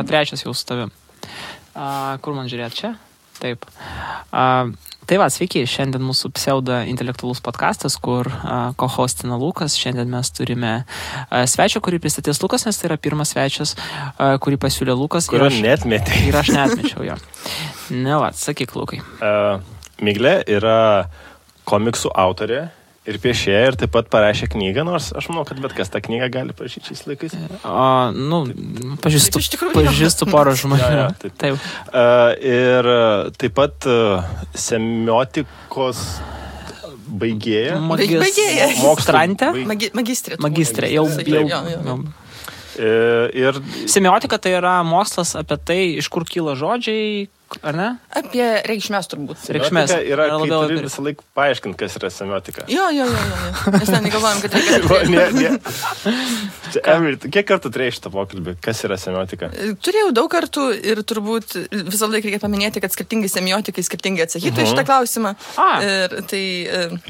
yra trečias jau su tavim. Kur man žiūrėti čia? Taip. Tai va, sveiki, šiandien mūsų pseudo intelektualus podcastas, kur co-hostina Lukas. Šiandien mes turime svečią, kurį pristatys Lukas, nes tai yra pirmas svečias, kurį pasiūlė Lukas. Kurio netmetė. Ir aš netmečiau jo. Ne, va, sakyk, Lukai. Miglė yra komiksų autorė ir piešėja ir taip pat parašė knygą, nors aš manau, kad bet kas tą knygą gali parašyti šiais laikais. Pažįstu porą žmonių. Taip. Ir taip pat semiotikos baigėja. Magistrė. Jau. Ir semiotika tai yra mokslas apie tai, iš kur kyla žodžiai, ar ne? Apie reikšmės turbūt. Reikšmės yra, kai turi visą laiką paaiškinti, kas yra semiotika. Jo. Mes negalvojam, kad reikia. Kiek kartų turėjai šitą pokalbį? Kas yra semiotika? Turėjau daug kartų ir turbūt visą laiką reikia paminėti, kad skirtingi semiotikai skirtingai atsakytų šitą klausimą. Ir tai...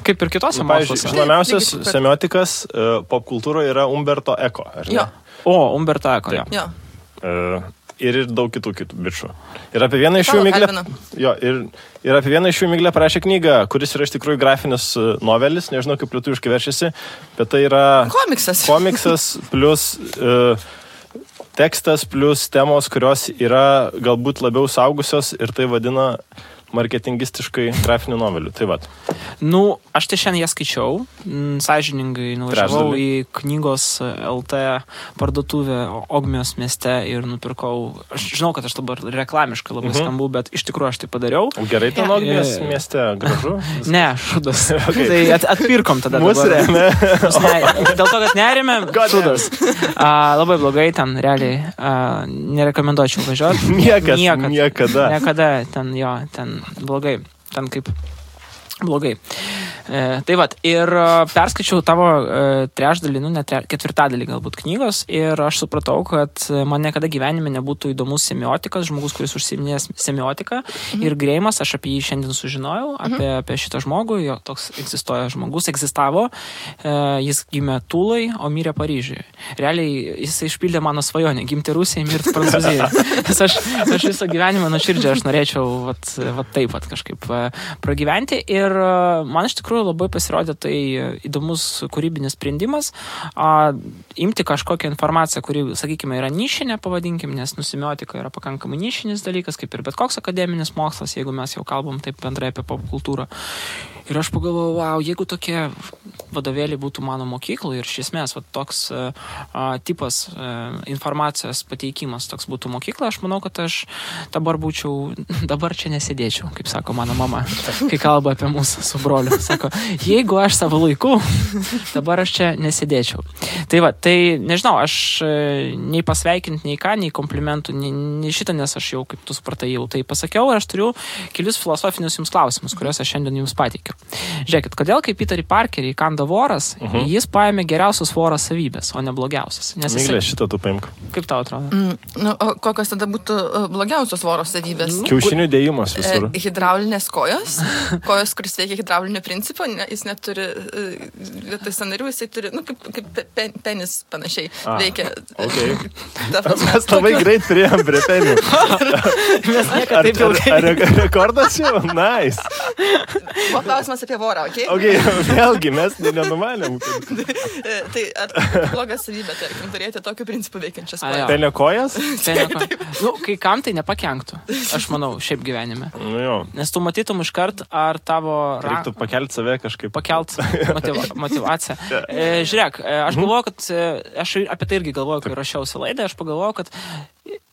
Kaip ir kitose moksluose. Žinomiausias semiotikas popkultūroje yra Umberto Eco, ar ne? Jo. Umberto Eco, jo. Ir daug kitų bičių. Ir apie vieną iš jų Miglė parašė knygą, kuris yra iš tikrųjų grafinis novelis, nežinau kaip lietuviškai verčiasi, bet tai yra komiksas plus tekstas plus temos, kurios yra galbūt labiau saugusios ir tai vadina marketingistiškai grafinių novelių. Tai vat. Aš tai šiandien jas skaičiau, sąžiningai nuvažiavau į knygos LT parduotuvę Ogmios mieste ir nupirkau, aš žinau, kad aš dabar reklamiškai labai skambu, bet iš tikrųjų aš tai padariau. Gerai ten Ogmios mieste, gražu? Ne, šudas. Tai atpirkom tada. Mūsų remė. Dėl to, kad nerėmė, šudas. Labai blogai ten, realiai, nerekomenduočiau važiuoti. Niekada ten blogai, ten kaip blogai. Tai vat, ir perskaičiau tavo trečdalį, ketvirtadalį galbūt knygos ir aš supratau, kad man niekada gyvenime nebūtų įdomus semiotikas, žmogus, kuris užsiiminės semiotiką ir Greimas, aš apie jį šiandien sužinojau, apie šitą žmogų, jo toks egzistavo, jis gimė Tulai, o mirė Paryžiuje. Realiai jis išpildė mano svajonę, gimti Rusijoje, mirti Prancūzijoje. Nes aš visą gyvenimą nuoširdžiai aš norėčiau taip kažkaip pragyventi ir man iš tikrųjų labai pasirodė tai įdomus kūrybinis sprendimas imti kažkokią informaciją, kuri, sakykime, yra nišinė, pavadinkim, nes semiotika yra pakankamai nišinis dalykas, kaip ir bet koks akademinis mokslas, jeigu mes jau kalbam taip bendrai apie popkultūrą. Ir aš pagalvojau, jeigu tokie vadovėliai būtų mano mokykloje ir iš esmės toks tipas informacijos pateikimas toks būtų mokykla, aš manau, kad aš dabar čia nesėdėčiau, kaip sako mano mama, kai kalba apie mūsų su broliu. Sako, jeigu aš savo laiku, dabar aš čia nesėdėčiau. Tai nežinau, aš nei pasveikinti, nei ką, nei komplimentų, nei šitą, nes aš jau, kaip tu supratai, jau tai pasakiau ir aš turiu kelius filosofinius jums klausimus, kuriuos aš šiandien jums pateikiu. Žiūrėkit, kodėl kai Peterį Parkerį įkanda voras, jis paėmė geriausios voro savybės, o ne blogiausias? Miglė, šitą tu paimk. Kaip tau atrodo? O kokios tada būtų blogiausios voro savybės? Kiaušinių dėjimas visur. Hidraulinės kojos, kuris veikia hidraulinio principo, jis neturi vietoj sąnarių, jisai turi, kaip penis panašiai veikia. Okay. Mes labai greit priėjom prie penių. Ar rekordas jau? Nice. Buvo klausimas apie vorą, okei? Vėlgi, mes nenumanėm. Tai ar blogas savybė, tarkim, turėti tokiu principu veikiančias kojas? Penio kojas? Kai kam tai nepakenktų, aš manau, šiaip gyvenime. Nes tu matytum iškart, ar tavo... Reiktų pakelti save kažkaip. Motivaciją. Žiūrėk, aš galvoju, kad... Aš apie tai irgi galvoju, kai rašiausi laidą, aš pagalvoju, kad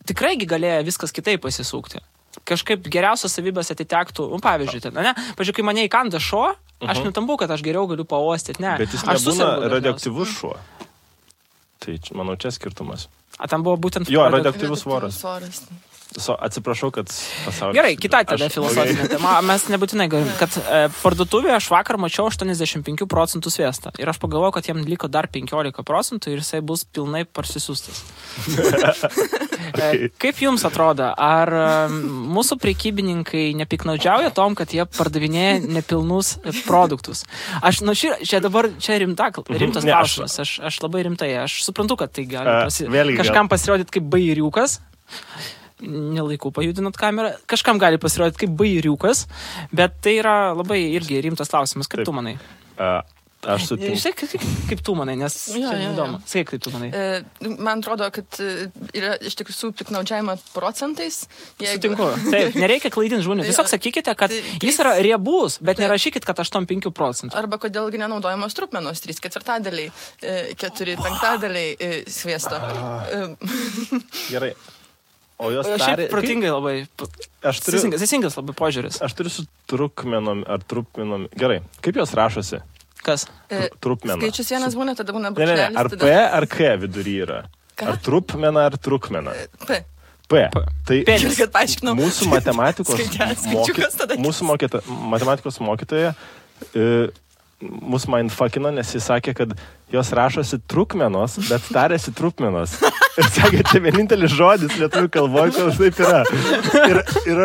tikrai galėjo viskas kitaip pasisukti. Kažkaip geriausios savybės atitektų, pavyzdžiui, pavyzdžiui, kai mane įkanda šuo, aš nutambu, kad aš geriau galiu paostyti, ne. Bet jis nebūna radioaktyvus šuo. Tai, manau, čia skirtumas. Tam buvo būtent... Jo, radioaktyvus voras. Atsiprašau, kad pasaulis... Gerai, kita tada filosofinė tema. Mes nebūtinai galim, kad parduotuvėje aš vakar mačiau 85% sviestą. Ir aš pagalvojau, kad jam liko dar 15% ir jisai bus pilnai parsisiųstas. Kaip jums atrodo, ar mūsų prekybininkai nepiknaudžiauja tom, kad jie pardavinėja nepilnus produktus? Aš, čia dabar, čia rimtas klausimas. Aš labai rimtai, aš suprantu, kad tai gali kažkam pasirodyti kaip bairiukas. Nelaiku pajudinat kamerą. Kažkam gali pasirodyti kaip bairiukas, bet tai yra labai irgi rimtas klausimas. Kaip tu manai? Aš sutinku. Žinai, kaip tu manai, nes įdomu. Sakyk, kaip tu manai. Man atrodo, kad yra iš tikrųjų piknaudžiavimo procentais. Sutinku. Taip, nereikia klaidinti žmonių. Tiesiog sakykite, kad jis yra riebus, bet nerašykit, kad 8-5%. Arba kodėlgi nenaudojamos trupmenos 3/4, 4/5 sviesto. Gerai. O jos šiaip protingai labai. Teisingas labai požiūris. Aš turiu su trukmenom ar trupmenom. Gerai. Kaip jos rašosi? Kas? Trupmena. Skaičius vienas būna, tada būna brūkšnelis. Ne, ar P ar K vidury yra? Ką? Ar trupmena ar trukmena? P. Tai kad paaiškinau. Mūsų matematikos mokytoja mus mindfuckino, nes jis sakė, kad jos rašosi trukmenos, bet tarėsi trupmenos. Ir sakė, tai vienintelis žodis lietuvių kalboje, kad taip yra. Ir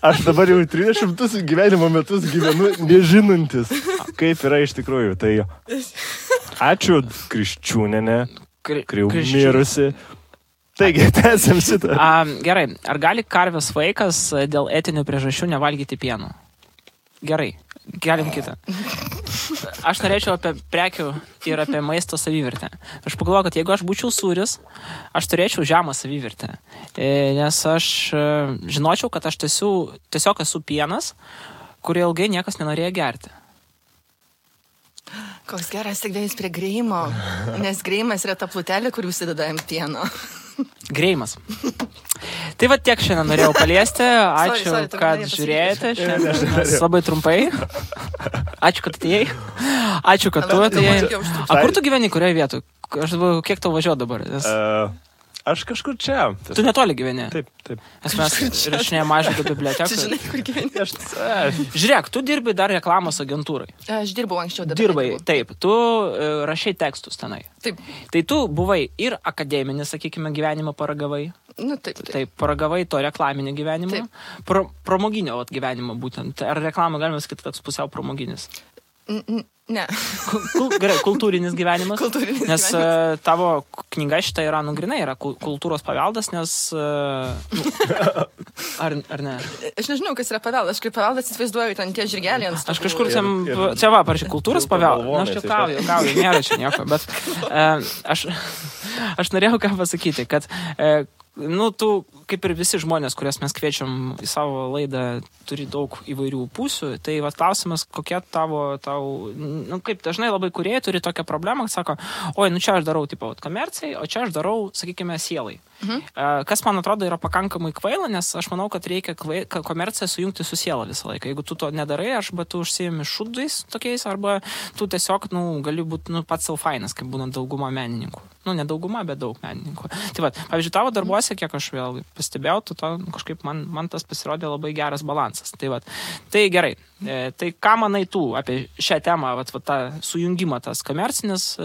aš dabar jau 300 gyvenimo metus gyvenu nežinantis, kaip yra iš tikrųjų. Tai ačiū Kriščiūnienė, mirusi. Taigi, tęsiam šitą. Gerai, ar gali karvės vaikas dėl etinių priežasčių nevalgyti pieno? Gerai, galim kitą. Aš norėčiau apie prekių ir apie maisto savivertę. Aš pagalvoju, kad jeigu aš būčiau sūris, aš turėčiau žemą savivertę. Nes aš žinočiau, kad aš tiesiog esu pienas, kurį ilgai niekas nenorėjo gerti. Koks geras tik dėjus prie greimo, nes greimas yra ta plutelė, kur užsideda ant pieno. Greimas. Tai va tiek šiandien norėjau paliesti. Ačiū, kad žiūrėjote. Šiandien labai trumpai. Ačiū, kad atėjai. Ačiū, kad tu atėjai. A kur tu gyveni, kurioje vietoje? Aš dabar, kiek tau važiuoju dabar? Aš kažkur čia. Tu netoli gyveni? Taip. Nes mes rašinėjame mažą biblioteką. Tu žinai, kur gyveni? Žiūrėk, tu dirbi dar reklamos agentūrai. Aš dirbau anksčiau. Dirbai, taip. Tu rašai tekstus tenai. Taip. Tai tu buvai ir akademinis, sakykime, gyvenimą paragavai. Nu, taip. Taip, paragavai to reklaminio gyvenimo. Pramoginio gyvenimo būtent. Ar reklamą galima sakyti toks pusiau pramoginis? Ne. Gerai, kultūrinis gyvenimas. Nes gyvenimas. Tavo knyga šitą yra, grinai yra kultūros paveldas, nes... Ar ne? Aš nežinau, kas yra paveldas. Aš kaip paveldas įsivaizduoju, ten tie žirgeliai ant stogų. Aš kažkur čia va, parašy, kultūros paveldas. Aš juokauju, nėra čia nieko, bet aš norėjau ką pasakyti, kad tu, kaip ir visi žmonės, kurias mes kviečiam į savo laidą, turi daug įvairių pusių. Tai va klausimas, kokia tau, kaip dažnai labai kūrėjai turi tokią problemą, kad sako, oi, čia aš darau tipo komercijai, o čia aš darau, sakykime, sielai. Kas man atrodo yra pakankamai kvaila, nes aš manau, kad reikia komerciją sujungti su siela visą laiką. Jeigu tu to nedarai, arba tu užsiimi šūdais tokiais, arba tu tiesiog, gali būti pats sau fainas, kaip būna dauguma menininkų. Ne dauguma, bet daug menininkų. Tai va, pavyzdžiui, tavo darbuose, kiek aš vėl pastebėjau, kažkaip man tas pasirodė labai geras balansas. Tai va, tai gerai. Tai ką manai tu apie šią temą, tą sujungimą, tas komercinis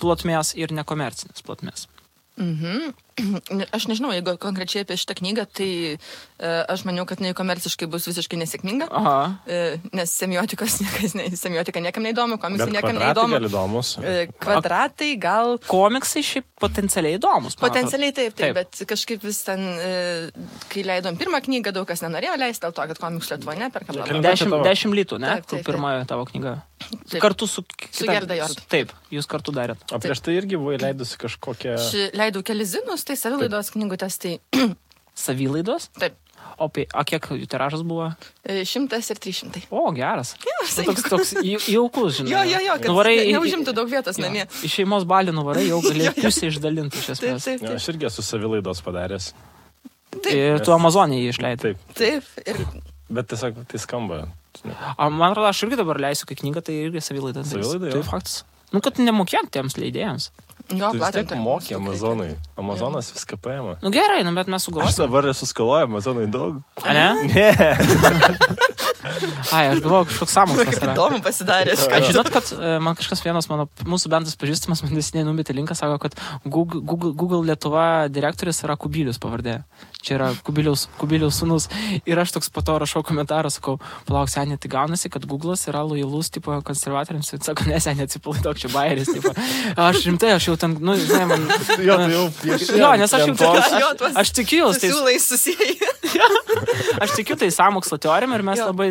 plotmės ir nekomercinis plotmės? Aš nežinau, jeigu konkrečiai apie šitą knygą, tai aš maniau, kad komerciškai bus visiškai nesėkminga, nes semiotika niekam neįdomu, komiksai niekam neįdomu. Bet kvadratai gal įdomus. Kvadratai gal... Komiksai šiaip potencialiai įdomus. Potencialiai taip, bet kažkaip vis ten, kai leidom pirmą knygą, daug kas nenorėjo leisti, dėl to, kad komiksų Lietuvoje neperkam. 10 litų, ne? Pirmoji tavo knyga. Kartu su Gerda Jord. Taip, jūs kartu darėt. O prieš tai irgi buvai leidusi kažkokią... Leidau kelis zinus, tai savilaidos knygutės, tai... Savilaidos? Taip. O kiek jų tiražas buvo? 100 ir 300. O, geras. Toks jaukus, žinai. Jo, kad neužimtų daug vietos namie. Iš šeimos balių nuvarai, jau galėjai pusę išdalinti iš esmės. Aš irgi esu savilaidos padaręs. Ir tu Amazonėje jį išleidai. Taip. Bet tiesiog tai skamba. Man atrodo, aš irgi dabar leisiu, kai knygą, tai irgi savilaida. Savilaida, tai faktas. Kad nemokėt tiems leidėjams. Jo, tu vis tiek mokė Amazonai. Amazonas viską paėmė. Gerai, bet mes sugalvojame. Aš dabar esu skaloję Amazonai daug. A ne? Ne. Aš galvoju, kažkoks sąmokslas yra. Įdomu pasidarė. Žinot, kad man kažkas vienas mūsų bendras pažįstamas, man nesiniai numetė linką, sako, kad Google Lietuva direktorius yra Kubilius pavardė. čia yra Kubiliaus sūnus. Ir aš toks po to rašau komentarą, sakau, palauk, seniai, tai gaunasi, kad Google'as yra lojalus, tipo, konservatoriams. Sako, ne, seniai, atsipalaiduok, čia bajeris, tipo. Aš rimtai, aš jau ten, nu, žinai, man... Jo, nes aš jau... Aš tikiu, tai... Siūlai susijai. Aš tikiu tai sąmokslo teorijom ir mes labai...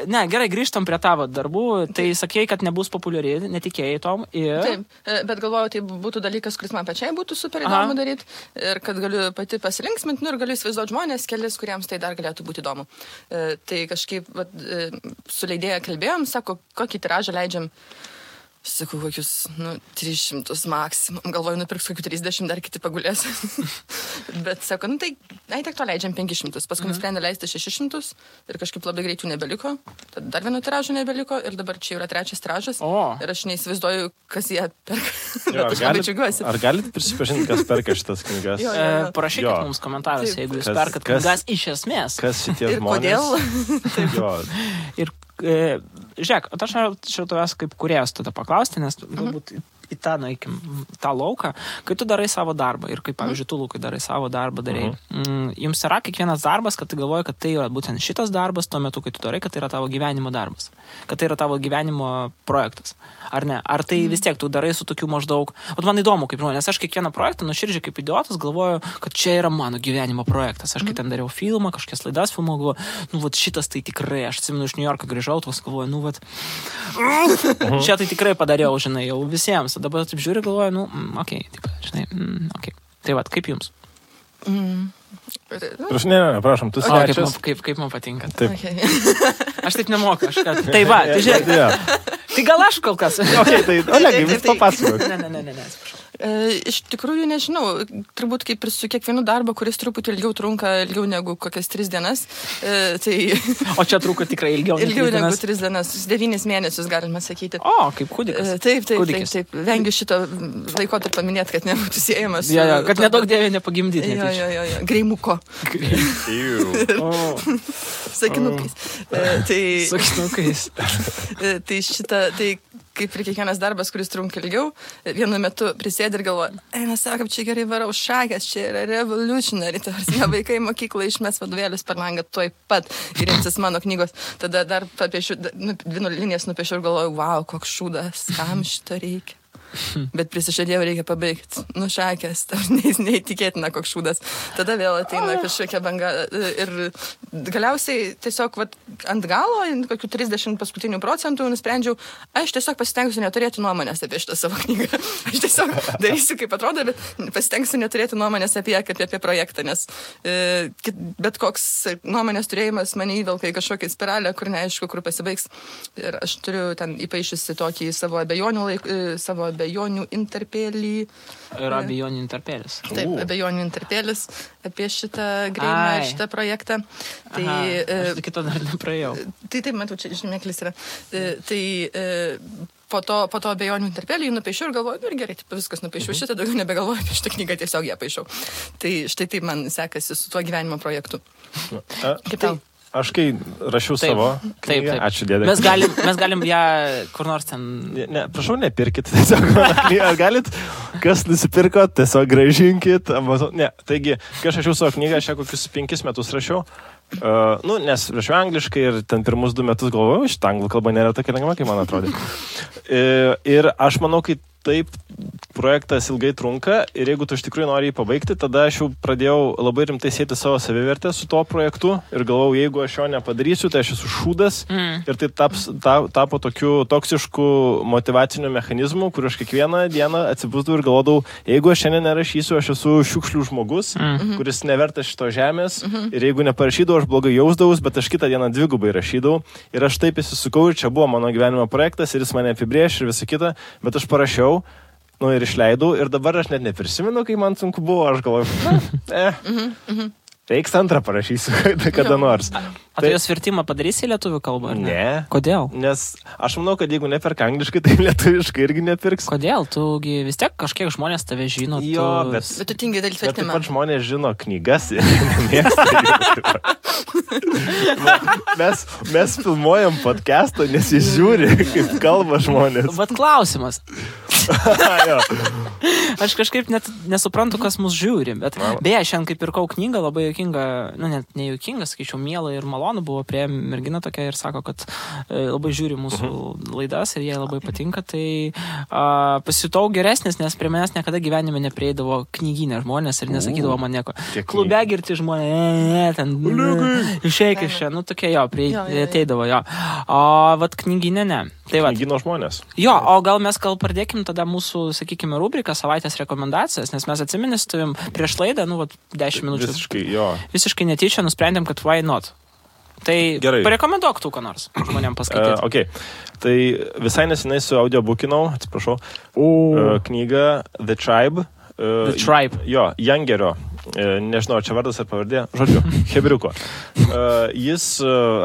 Ne, gerai, grįžtam prie tavo darbų. Tai sakėjai, kad nebus populiari, netikėjai tom. Ir... Taip, bet galvoju, tai būtų dalykas, kuris man pačiai būtų super įdomu daryti. Ir kad galiu pati pasilinksminti, ir galiu įsivaizduoti žmonės, kelis, kuriems tai dar galėtų būti įdomu. Tai kažkaip su leidėja kalbėjom, sako, kokį tiražą leidžiam. Sakau, kokius, 300 maksimum. Galvoju, nupirks kokių 30, dar kiti pagulės. Bet sako, tai, tiek to leidžiam 500. Paskui nusprendė leisti 600 ir kažkaip labai greitų nebeliko. Tad dar vieno tiražo nebeliko ir dabar čia yra 3 tiražas. Ir aš neįsivaizduoju, kas jie perka. Bet aš labai džiaugiuosi. Ar galite prisipažinti, kas perka šitas knygas? Parašykit mums komentaruose, jeigu jūs perkat knygas iš esmės. Kas šitie žmonės? Ir kodėl? Ir žiūrėk, aš noriu tavęs kaip kūrėjas tada paklausti, nes galbūt į tą, nueikim, tą lauką, kai tu darai savo darbą ir kaip, pavyzdžiui, tu, Lukai, darai savo darbą, jums yra kiekvienas darbas, kad tu galvoji, kad tai yra būtent šitas darbas tuo metu, kai tu darai, kad tai yra tavo gyvenimo darbas, kad tai yra tavo gyvenimo projektas, ar ne? Ar tai vis tiek tu darai su tokiu maždaug, man įdomu, kaip žmonės, aš kiekvieną projektą nuoširdžiai kaip idiotas galvoju, kad čia yra mano gyvenimo projektas, aš kai ten dariau filmą, kažkokias laidas filmavau, galvoju, šitas tai tikrai, aš atsimenu iš New Yorko grįžau, tos galvoju, čia tai tikrai padariau, žinai, jau visiems. Dabar taip žiūri, galvoju, okei, taip, žinai, okei. Tai vat, kaip jums? Prašom, tu svečias. Kaip man patinka. Taip. Aš taip nemoku, tai va, tai žiūrėk. Tai gal aš kol kas. Tai Olegai, vis papasakok. Ne, atsiprašau. Iš tikrųjų, nežinau, turbūt kaip ir su kiekvienu darbu, kuris truputį ilgiau negu kokias 3 dienas. Tai... O čia truko tikrai ilgiau negu 3 dienas, 9 mėnesius galima sakyti. O, kaip kūdikas. Taip. Vengiu šito laikotarpį paminėti, kad nebūtų siejamas. Kad nedaug dievė nepagimdyti. Greimuko. Sakinukais. Sakinukais. Tai šitą, tai kaip ir kiekvienas darbas, kuris trunka ilgiau, vienu metu prisėdi ir galvoja, mes sakom, čia gerai varau šakės, čia yra revolutionary, tarsi vaikai mokyklą išmes vadovėlius per langą tuoj pat ir imsis mano knygos. Tada dar papiešiu, 2 linijas nupiešiu ir galvoju, wow, koks šūdas, kam šito reikia. Bet prisižadėjau, reikia pabaigti. Šakės, neįtikėtina koks šūdas. Tada vėl ateina kažkokia banga ir galiausiai tiesiog ant galo, kokių 30 paskutinių procentų nusprendžiau, aš tiesiog pasitengsiu neturėti nuomonės apie šitą savo knygą. Aš tiesiog darysiu, kaip atrodo, bet pasitengsiu neturėti nuomonės apie ją, kaip apie projektą, nes bet koks nuomonės turėjimas mane įvelka į kažkokią spiralę, kur neaišku, kur pasibaigs. Ir aš turiu ten įpaišusi tokį savo abejonių interpėlį. Ir abejonių interpėlis. Taip, abejonių interpėlis apie šitą greimą, šitą projektą. Tai, aš kito dar nepraėjau. Tai taip, matau, čia žymėklis yra. Tai po to abejonių interpėlį nupaišiau ir galvoju, ir gerai, taip, viskas nupaišiau šitą, daugiau nebegalvoju apie šitą knygą, tiesiog ją paišiau. Tai štai taip man sekasi su tuo gyvenimo projektu. Kaip tau? Aš kai rašiau savo knygą, ačiū dėdė. Mes galim ją kur nors ten... Ne, prašau, nepirkit tiesiog mano knygą. Ar galit, kas nusipirko, tiesiog grąžinkit. Ne, taigi, kai aš rašiau savo knygą, aš ją kokius 5 metus rašiau. Nes rašiau angliškai ir ten pirmus 2 metus galvojau, šitą anglų kalba nėra tokia lengva, kaip man atrodė. Ir aš manau, kai taip projektas ilgai trunka ir jeigu tu iš tikrųjų nori jį pabaigti, tada aš jau pradėjau labai rimtai sieti savo savivertę su tuo projektu ir galvojau, jeigu aš jo nepadarysiu, tai aš esu šūdas ir tai tapo tokiu toksišku motyvaciniu mechanizmu, kur aš kiekvieną dieną atsibusdavau ir galvodavau, jeigu aš šiandien nerašysiu, aš esu šiukšlių žmogus, kuris nevertas šito žemės ir jeigu neparašydavau, aš blogai jausdavus, bet aš kitą dieną 2 rašydavau ir aš taip įsisukau ir čia buvo mano gyvenimo projektas ir jis mane apibrėš ir visą kitą, bet aš parašiau ir išleidau ir dabar aš net neprisimenu, kai man sunku buvo, aš galvoju, reiks antrą parašysiu kada nors. O tu jos vertimą padarysi į lietuvių kalbą, ar ne? Ne. Kodėl? Nes aš manau, kad jeigu neperka angliškai, tai lietuviškai irgi nepirks. Kodėl? Tugi vis tiek kažkiek žmonės tave žino. Jo, bet tu tingi daryti vertimą. Bet taip pat žmonės žino knygas ir nemėgsta. Mes filmuojam podcastą, nes jis žiūri, kaip kalba žmonės. Bet klausimas. Aš kažkaip net nesuprantu, kas mus žiūri, bet beje, šiandien kaip pirkau knygą, labai juokinga, net nejuokinga, sakyčiau, miela ir malonu buvo prie mergina tokia ir sako, kad labai žiūri mūsų laidas ir jai labai patinka, tai pasijutau geresnis, nes prie manęs niekada gyvenime neprieidavo knyginė žmonės ir nesakydavo man nieko. Klube girti žmonės, ten išeik iš čia, tokie ateidavo, o vat knyginė ne. Tai knygino žmonės. Jo, o gal mes pradėkim tada mūsų, sakykime, rubriką savaitės rekomendacijas, nes mes atsiminės tavim prieš laidą, 10 minučių. Visiškai netyčia nusprendėm, kad why not. Tai parekomenduok tu, ką nors žmonėm paskaityti. Okay. Tai visai nesenai su audiobookinau, atsiprašau, knygą The Tribe. The Tribe. Jo, Jangerio. Nežinau, čia vardas ar pavardė, žodžiu, Hebriuko. Jis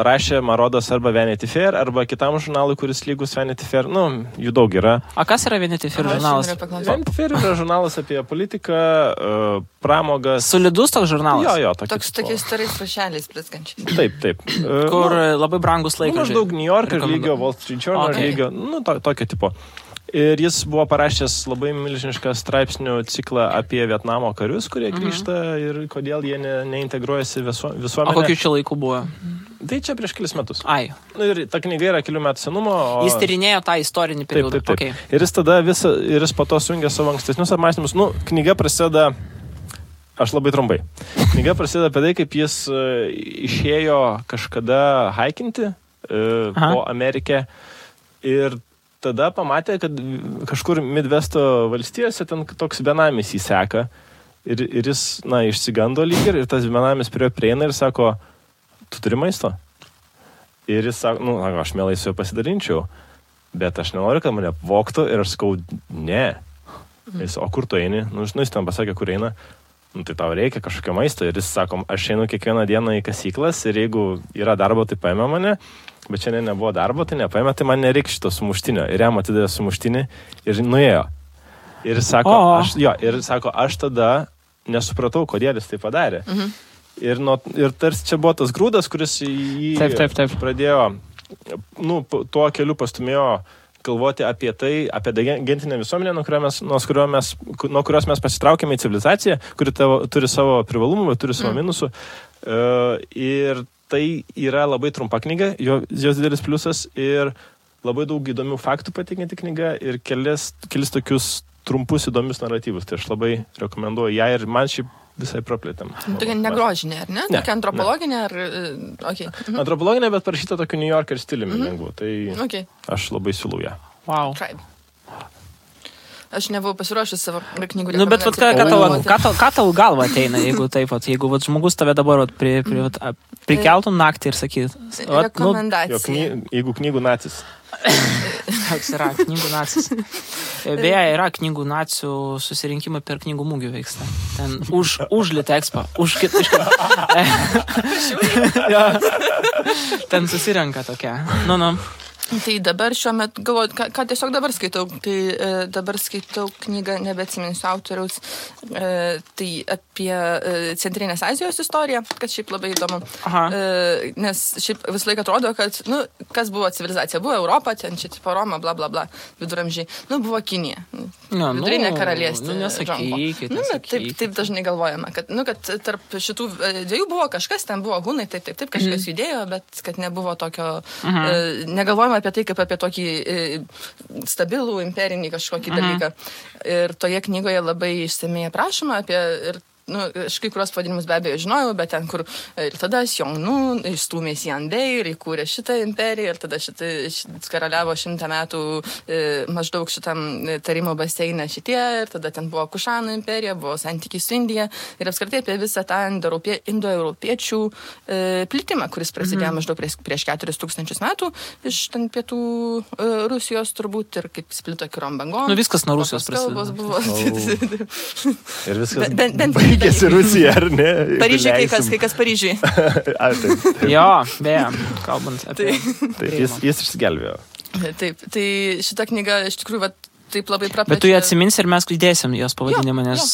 rašė, man rodos, arba Vanity Fair, arba kitam žurnalui, kuris lygus Vanity Fair. Jų daug yra. A kas yra Vanity Fair žurnalas? Vanity Fair yra žurnalas apie politiką, pramogas. Solidus toks žurnalas? Jo. Tokiais starais rašeliais blizgančiais. Taip. Kur labai brangus laikas. Maždaug New York lygio, Wall Street Journal lygio, tokio tipo. Ir jis buvo parašęs labai milžinišką straipsnių ciklą apie Vietnamo karius, kurie grįžta ir kodėl jie neintegruojasi visuomenę. O kokiu čia laiku buvo? Tai čia prieš kelis metus. Ai. Ir ta knyga yra kelių metų senumo. Jis tyrinėjo tą istorinį periodą. Taip. Okay. Ir jis tada jis po to sujungė savo ankstesnius apmąstymus. Knyga prasideda, aš labai trumpai. Knyga prasideda apie tai, kaip jis išėjo kažkada haikinti po Amerikę ir tada pamatė, kad kažkur Midvesto valstijose ten toks benamis jį seka ir jis, išsigando lyg ir tas benamis prie jo prieina ir sako, tu turi maisto? Ir jis sako, aš mielai su juo pasidalinčiau, bet aš nenoriu, kad mane vogtų ir aš sakau, ne. Jis, o kur tu eini? Jis ten pasakė, kur eina. Tai tau reikia kažkokio maisto ir jis sako, aš einu kiekvieną dieną į kasyklas ir jeigu yra darbo, tai paėmė mane, bet šiandien nebuvo darbo, tai nepaėmė, tai man nereikia šito sumuštinio. Ir jam atidėjo sumuštinį ir nuėjo. Ir sako, aš tada nesupratau, kodėl jis tai padarė. Ir tarsi čia buvo tas grūdas, kuris jį taip. Pradėjo, tuo keliu pastumėjo galvoti apie tai, apie gentinę visuomenę, nuo kurios mes pasitraukėme į civilizaciją, kuri turi savo privalumų, bet turi savo minusų. Ir tai yra labai trumpa knyga, jos didelis pliusas ir labai daug įdomių faktų pateikianti knyga ir kelis tokius trumpus įdomius naratyvus. Tai aš labai rekomenduoju ją ir man šiaip visai praplėtėm. Tokia negrožinė, ar ne? Tokia antropologinė, ar... Okay. Antropologinė, bet parašyta tokiu New Yorker stiliumi lengvu. Tai aš labai siūlau ją. Wow. Aš nebuvau pasiruošęs savo knygų. Bet ką tau galva ateina, jeigu taip, jeigu žmogus tave dabar prikeltų naktį ir sakyt. Rekomendacija. Jeigu knygų nacis. Toks yra knygų nacis. Beje, yra knygų nacių susirinkimai per knygų mūgių vyksta. Ten už Litexpo, už kitą. Ten susirenka tokia. Tai dabar šiuo metu, galvoju, ką tiesiog dabar skaitau, tai dabar skaitau knygą, nebeatsiminsiu autoriaus, tai apie Centrinės Azijos istoriją, kas šiaip labai įdomu. Nes šiaip visą laiką atrodo, kad, kas buvo civilizacija, buvo Europa, ten čia tipo Roma, bla bla bla, viduramžiai, buvo Kinija, vidurinė karalystė. Taip dažnai galvojama, kad tarp šitų dviejų buvo kažkas, ten buvo hunai, taip, kažkas judėjo, bet kad nebuvo tokio, negalvojama apie tai, kaip apie tokį stabilų imperinį kažkokį dalyką. Ir toje knygoje labai išsamiai aprašoma apie... aš kai kurios pavadinimus be abejo žinojau, bet ten, kur ir tada Xiongnu išstūmės Yanbei ir įkūrė šitą imperiją ir tada karaliavo 100 metų maždaug šitam tarimo baseine šitie ir tada ten buvo Kušanų imperija, buvo santykiai su Indija ir apskritai apie visą tą indoeuropiečių plitimą, kuris prasidėjo maždaug prieš 4000 metų iš ten pietų Rusijos turbūt ir kaip splito kirom bangom. Viskas nuo Rusijos prasidėjo. Ir viskas baigėsi Rusija, ar ne? Paryžiui kai kas Paryžiui. Jo, beje, kalbant apie... Taip, jis išsigelbėjo. Taip, tai šita knyga iš tikrųjų taip labai praplečia. Bet tu jį atsiminsi ir mes įdėsim jos pavadinimą, nes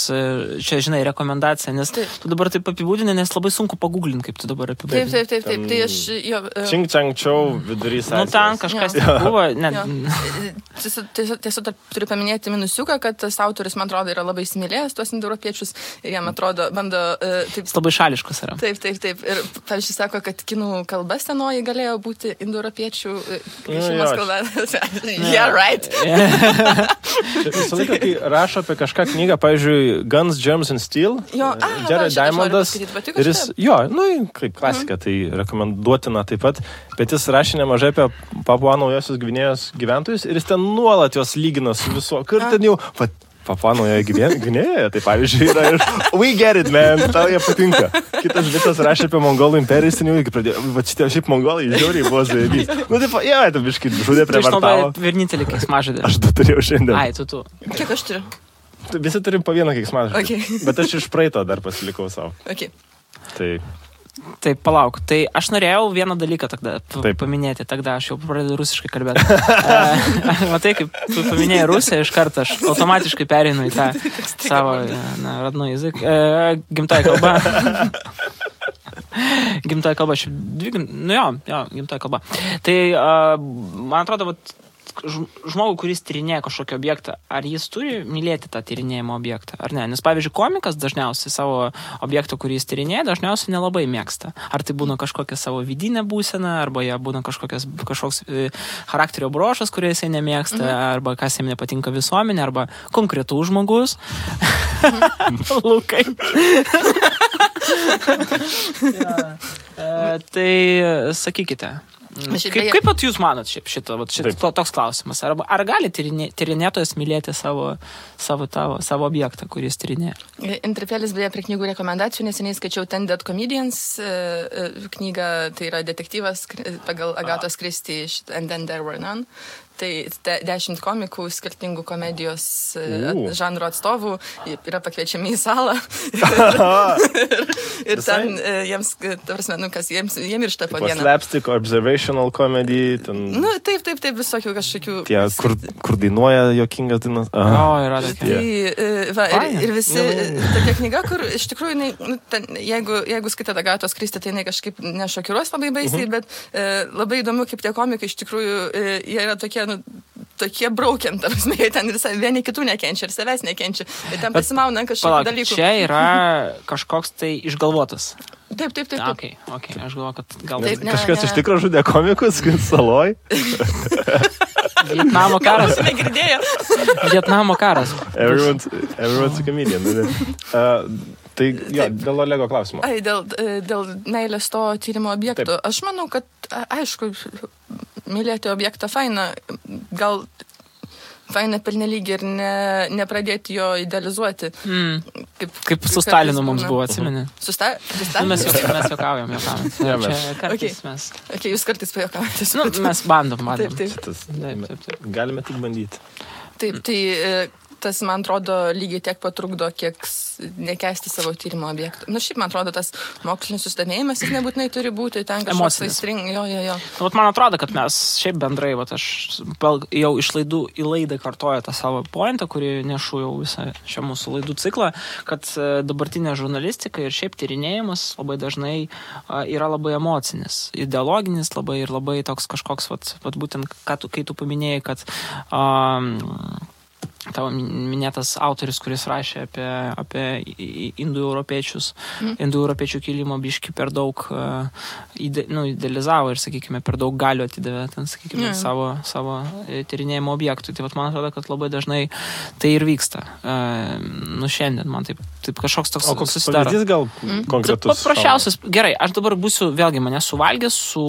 čia, žinai, rekomendacija, nes tu dabar taip apibūdini, nes labai sunku paguglinti, kaip tu dabar apibūdini. Taip. Tai aš jo... Čing Čang Čiau vidurys. Nu, ten kažkas buvo. Tiesiog turiu paminėti minusiuką, kad tas autorius, man atrodo, yra labai įsimylėjęs tuos indoeuropiečius ir jam atrodo, bando... Jis labai šališkas yra. Taip. Ir, pavyzdžiui, sako, kad kinų kalba senoji galėjo būti indoeuropiečių šeimos kalba. Yeah, right. Visą laiką, kai rašo apie kažką knygą, pavyzdžiui, Guns, Germs and Steel, Jared Diamondas, ir jis, kaip klasika, tai rekomenduotina taip pat, bet jis rašė nemažai apie Papua Naujosios Gvinėjos gyventojus ir jis ten nuolat juos lygina su viso, kur ten jau, Papua Naujoje Gvinėjoje, tai pavyzdžiui, yra ir we get it, man, tau jie patinka. Kitas visas rašė apie Mongolų imperiją, ten jau iki pradėjo, va šitie šiaip Mongolai žiauriai buvo zaibys. Nu, taip, tai biškai žudė prie vartavo. Tu vienintelį keiksmažodį. Aš du turėjau šiandien. Ai, tu. Kiek aš turiu? Visi turim po vieną keiksmažodį. Okay. Bet aš iš praeito dar pasilikau savo. Okay. Taip, palauk. Tai aš norėjau vieną dalyką tada paminėti. Tada aš jau pradedu rusiškai kalbėti. Matai, kaip tu paminėjai Rusiją, iš karto aš automatiškai pereinu į tą savo radnų jazyką. Gimtoji kalba. Gimtoji kalba. Gimtoji kalba. Tai, man atrodo, žmogų, kuris tyrinėja kažkokį objektą, ar jis turi mylėti tą tyrinėjimo objektą, ar ne? Nes, pavyzdžiui, komikas dažniausiai savo objektą, kurį jis tyrinėja, dažniausiai nelabai mėgsta. Ar tai būna kažkokia savo vidinė būsena, arba jie būna kažkoks charakterio brošas, kurį jisai nemėgsta, arba kas jam nepatinka visuomenė, arba konkretų žmogus. Lukai. Tai sakykite. Kaip pat jūs manot šito toks klausimas? Ar gali tyrinėtojas mylėti savo objektą, kuris tyrinėja? Interpelis beje prie knygų rekomendacijų, neseniai skaičiau Ten Dead Comedians knygą, tai yra detektyvas pagal Agatos Christie And Then There Were None. Tai 10 komikų, skirtingų komedijos žanro atstovų yra pakviečiami į salą. ir ten jiems, jiems miršta po dieną. Slapstick, observational comedy. Ten... Nu, taip, visokių kažkokių... Tie, kur dainuoja jokingas dainas. Yra tokia. Ir visi tokia knyga, kur iš tikrųjų, jeigu skaitat Agatos Christie, tai jinai kažkaip nešokiruos labai baisiai, bet labai įdomu, kaip tie komikai iš tikrųjų, jie yra tokie braukiant, ten ir vieni kitų nekenčia, ir savęs nekenčia. Ir ten pasimauna kažkokių dalykų. Čia yra kažkoks tai išgalvotas. Taip. Okay, aš galvoju, kad gal... Kažkas iš tikro žudė komikus, saloj. Vietnamo karas. Negirdėjo. Vietnamo karas. Everyone's a comedian. Tai dėl Olego klausimo. Dėl meilės to tyrimo objekto. Aš manau, kad, aišku, mylėti objektą faina, gal faina pernelyg ir nepradėti jo idealizuoti. Kaip su Stalinu mums buvo, atsimeni? Su Stalinu? Mes juokaujam. Čia kartais mes... Jūs kartais pajuokaujate. Mes bandom. Taip. Galime tik bandyti. Taip, tai... Tas, man atrodo, lygiai tiek patrukdo, kiek nekęsti savo tyrimo objektų. Šiaip, man atrodo, tas mokslinis susidomėjimas jis nebūtinai turi būti ten kažkoks aistring. Jo. Man atrodo, kad mes šiaip bendrai, aš jau iš laidų į laidą kartoju tą savo pointą, kurį nešu jau visą šią mūsų laidų ciklą, kad dabartinė žurnalistika ir šiaip tyrinėjimas labai dažnai yra labai emocinis, ideologinis labai ir labai toks kažkoks, būtent, kai tu paminėjai, kad tavo minėtas autorius, kuris rašė apie indoeuropiečius, indoeuropiečių kilimo biškį per daug idealizavo ir, sakykime, per daug galių atidavė ten, sakykime, savo tyrinėjimo objektų. Tai man atrodo, kad labai dažnai tai ir vyksta. Šiandien man taip kažkoks toks susidaro. O koks pavyzdys gal konkretus? Paprasčiausias. Gerai, aš dabar būsiu, vėlgi, mane suvalgęs su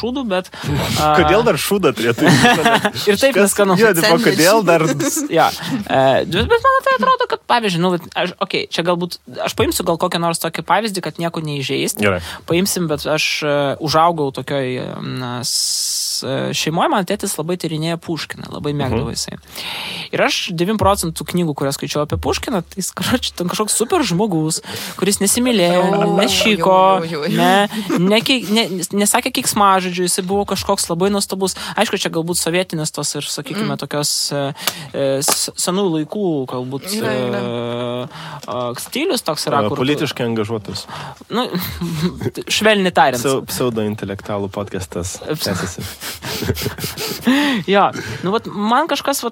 šūdu, bet... Kodėl dar šūdą turėtų? Ir taip neskanu. Kodėl dar... Ja. Bet man tai atrodo, kad pavyzdžiui, čia galbūt, aš paimsiu gal kokią nors tokį pavyzdį, kad nieko neįžeisti. Paimsim, bet aš užaugau tokioj šeimoje man tėtis labai tyrinėja Puškiną, labai mėgdavo jisai. Ir aš 9% knygų, kurias skaičiau apie Puškiną, tai jis kažkoks super žmogus, kuris nesimylėjo, nešyko, nesakė keiksmažodžių, jisai buvo kažkoks labai nuostabus. Aišku, čia galbūt sovietinis tos ir, sakykime, tokios senų laikų, galbūt stilius toks yra. Politiškai angažuotas. Nu, švelniai tariant. Pseudo-intelektualų podcastas. Jo, nu, vat, man kažkas,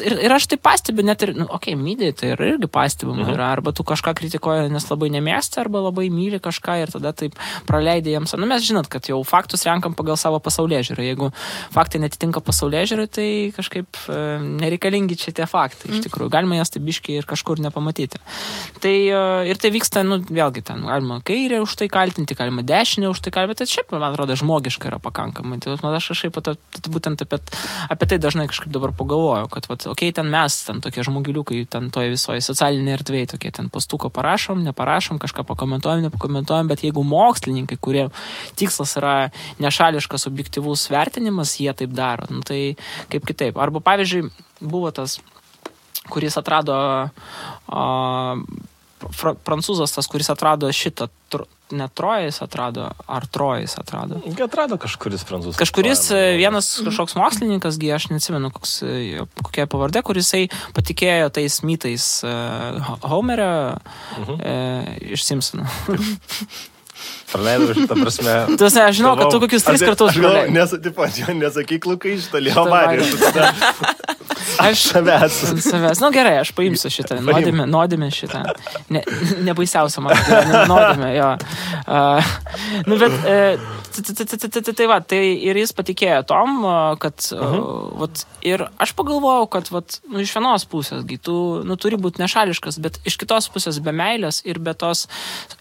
ir aš tai pastebiu, net ir, mydai, tai yra irgi pastebima yra, arba tu kažką kritikuoji, nes labai nemėgsti, arba labai myli kažką ir tada taip praleidai jiems. Nu, mes žinot, kad jau faktus renkam pagal savo pasaulėžiūrą. Jeigu faktai netitinka pasaulėžiūrai, tai kažkaip nereikalingi čia tie faktai. Iš tikrųjų, galima jas tai biškiai ir kažkur nepamatyti. Tai ir tai vyksta, nu, vėlgi ten, galima kairę už tai kaltinti, galima dešinę už tai kaltinti, bet šiaip, man atrodo, žmogiška yra pakankamai. Tai aš kažkaip būtent apie tai dažnai kažkaip dabar pagalvoju, kad, ten mes, ten tokie žmogiliukai, ten toje visoje socialinėje erdvėje, tokie ten pastuko parašom, neparašom, kažką pakomentuojam, nepakomentuojam, bet jeigu mokslininkai, kurie tikslas yra nešališkas objektyvus vertinimas, jie taip daro, nu, tai kaip kitaip. Arba, pavyzdžiui, buvo tas, kuris atrado prancūzas, tas, kuris atrado šitą, ne Trojas atrado, ar Trojas atrado? Atrado kažkuris prancūzas. Kažkuris vienas kažkoks mokslininkas, aš neatsimenu, kokia pavardė, kurisai patikėjo tais mitais Homerio iš Simpsonų. Praleidau šitą prasme. Tu aš žinau, kad tu kokius 3 kartus praleidai. Nesakyk, Lukai, šitą Leo Marijos. Aš savęs. Nu gerai, aš paimsiu šitą. Nuodėmė šitą. Nebaisiausia man. Nuodėmė, jo. Nu, bet tai ir jis patikėjo tom, kad ir aš pagalvojau, kad iš vienos pusės tu turi būti nešališkas, bet iš kitos pusės be meilės ir be tos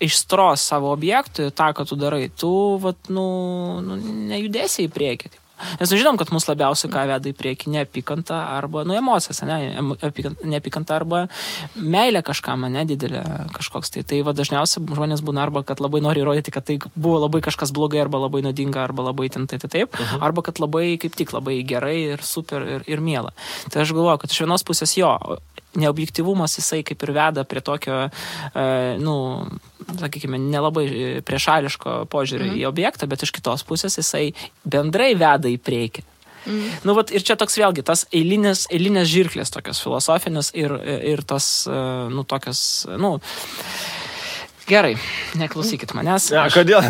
aistros savo objektui, tą, ką tu darai, tu nejudėsi į priekį. Nes žinom, kad mus labiausiai ką veda į priekį neapykanta arba emocijas, neapykanta arba meilė kažkam, didelė kažkoks. Tai dažniausiai žmonės būna arba, kad labai nori įrodyti, kad tai buvo labai kažkas blogai arba labai nuodinga arba labai taip, arba kad labai, kaip tik, labai gerai ir super ir miela. Tai aš galvoju, kad iš vienos pusės neobjektyvumas jisai kaip ir veda prie tokio, sakykime, nelabai priešališko požiūrio į objektą, bet iš kitos pusės jisai bendrai veda į priekį. Ir čia toks vėlgi, tas eilinės žirklės tokios filosofinės ir tos, tokios, gerai, neklausykit manęs. Kodėl?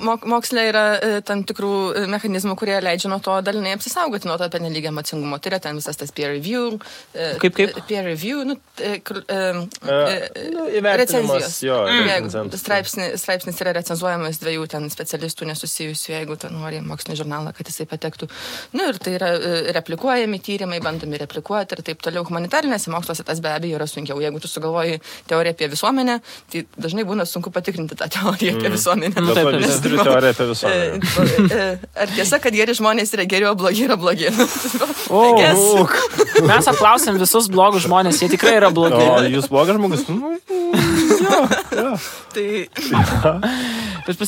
Moksle yra tam tikrų mechanizmų, kurie leidžia nuo to dalinai apsisaugoti nuo to pernelyg emocingumo. Tai yra ten visas tas peer review. Kaip? Peer review, recenzijos. Straipsnis yra recenzuojamas 2 ten specialistų nesusijusių, jeigu ten nori mokslinį žurnalą, kad jisai patektų. Ir tai yra replikuojami tyrimai, bandomi replikuoti ir taip toliau. Humanitarinėse moksluose tas be abejo yra sunkiau. Jeigu tu sugalvoji teoriją apie visuomenę, tai dažnai būna sunku patikrinti tą teoriją apie visuomenę. Visi turiu teoriją apie visuomenę. Ar tiesa, kad geri žmonės yra geri, o blogi yra blogi? Mes apklausėm visus blogus žmonės, jie tikrai yra blogi. O jūs blogas žmogus?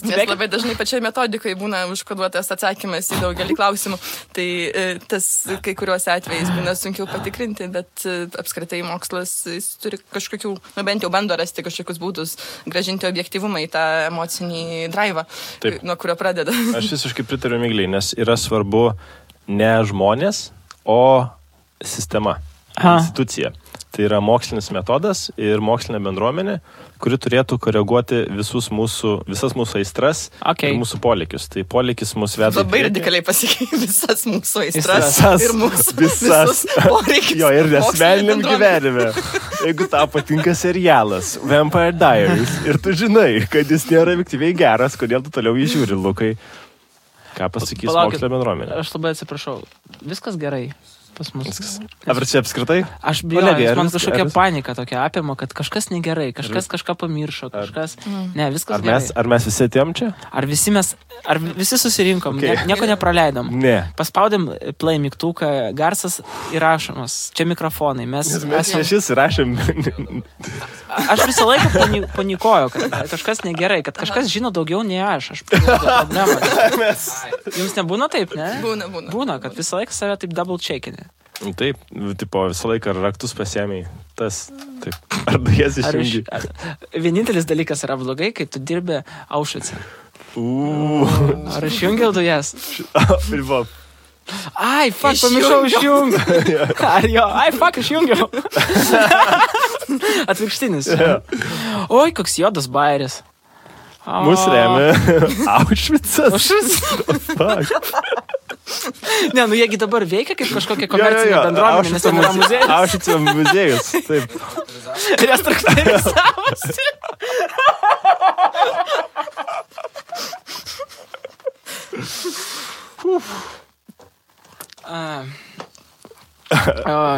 Nes labai dažnai pačiai metodikai būna užkoduotas atsakymas į daugelį klausimų. Tai tas kai kuriuos atvejais būna sunkiau patikrinti, bet apskritai mokslas turi kažkokių, bent jau bando rasti kažkokius būdus grąžinti objektyvumą į tą emocinį draivą, nuo kurio pradeda. Aš visiškai pritariu Migliai, nes yra svarbu ne žmonės, o sistema, institucija. Tai yra mokslinis metodas ir mokslinė bendruomenė, kuri turėtų koreguoti visas mūsų aistras ir mūsų poreikius. Tai poreikis mus veda. Labai radikaliai pasikeitė visas mūsų aistras ir mūsų visus poreikius. Jo, ir asmeniniam gyvenime. Jeigu tau patinka serialas Vampire Diaries ir tu žinai, kad jis nėra objektyviai geras, kodėl tu toliau jį žiūri, Lukai? Ką pasakys mokslinė bendruomenė? Aš labai atsiprašau. Viskas gerai. Pas mus. Ar čia apskritai? Aš bijoju, man kažkokia panika tokia apima, kad kažkas negerai, kažkas kažką pamiršo, kažkas... Ne, viskas gerai. Ar mes visi atėjom čia? Ar visi susirinkom, nieko nepraleidom. Ne. Paspaudėm play mygtuką, garsas įrašomas, čia mikrofonai. Mes šis įrašėm. aš visą laiką panikoju, kad kažkas negerai, kad kažkas žino daugiau nei aš problemą. Jums nebūna taip, ne? Būna, kad visą laiką save taip double checkini. Taip, tipo, visą laiką raktus pasiėmėjai. Tas, taip, ar dujas išjungi? Vienintelis dalykas yra blogai, kai tu dirbi Aušvice. Ar išjungiau dujas? Ai, fuck, pamiršau išjungti. Ar jo, ai, fuck, išjungiau. Atvirkštinis. Oi, koks juodas bairis. Mūsų remia Aušvicas. Ne, nu jiegi dabar veikia kaip kažkokia komercinė bendruomenė, nes ten yra muziejus. Aušvico muziejus, taip. Restruktūrizavosi.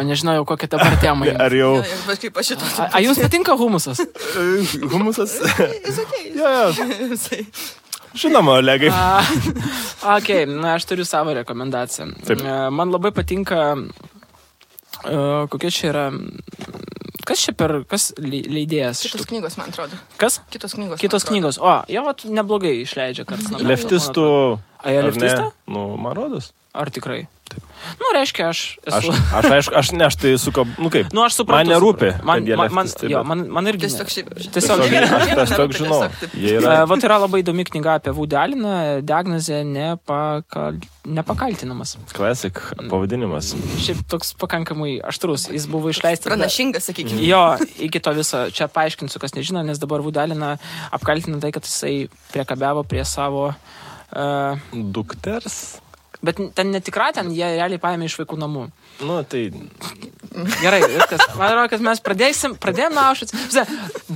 Nežinau, kokia dabar tema. Ar jau... A jums patinka humusas? Humusas? Žinoma, Olegai. Ok, na, aš turiu savo rekomendaciją. Taip. Man labai patinka, kokia čia yra... Kas leidėjas? Kitos knygos, man atrodo. Kas? Kitos knygos. Kitos knygos. O, jo, neblogai išleidžia kartais. Leftistų... A, jie leftistą? Nu, man rodos. Ar tikrai? Taip. Nu, reiškia, aš esu... Aš tai suko... Nu kaip? Nu, aš suprantu. Man nerūpi. Man irgi... Tiesiog aš toks žinau. Vat yra labai įdomi knyga apie Woody Alleną, diagnozė nepakaltinamas. Classic pavadinimas. Šiaip toks pakankamai aštrus. Jis buvo išleistas... Pranašingas, sakykime. Jo, iki to viso. Čia paaiškinsiu, kas nežino, nes dabar Woody Alleną apkaltina tai, kad jisai priekabiavo prie savo... Dukters? Bet ten netikra, ten jie realiai paėmė iš vaikų namų. Nu, tai... Gerai, viskas. Man atrodo, kad mes pradėjom nuo Aušvicą.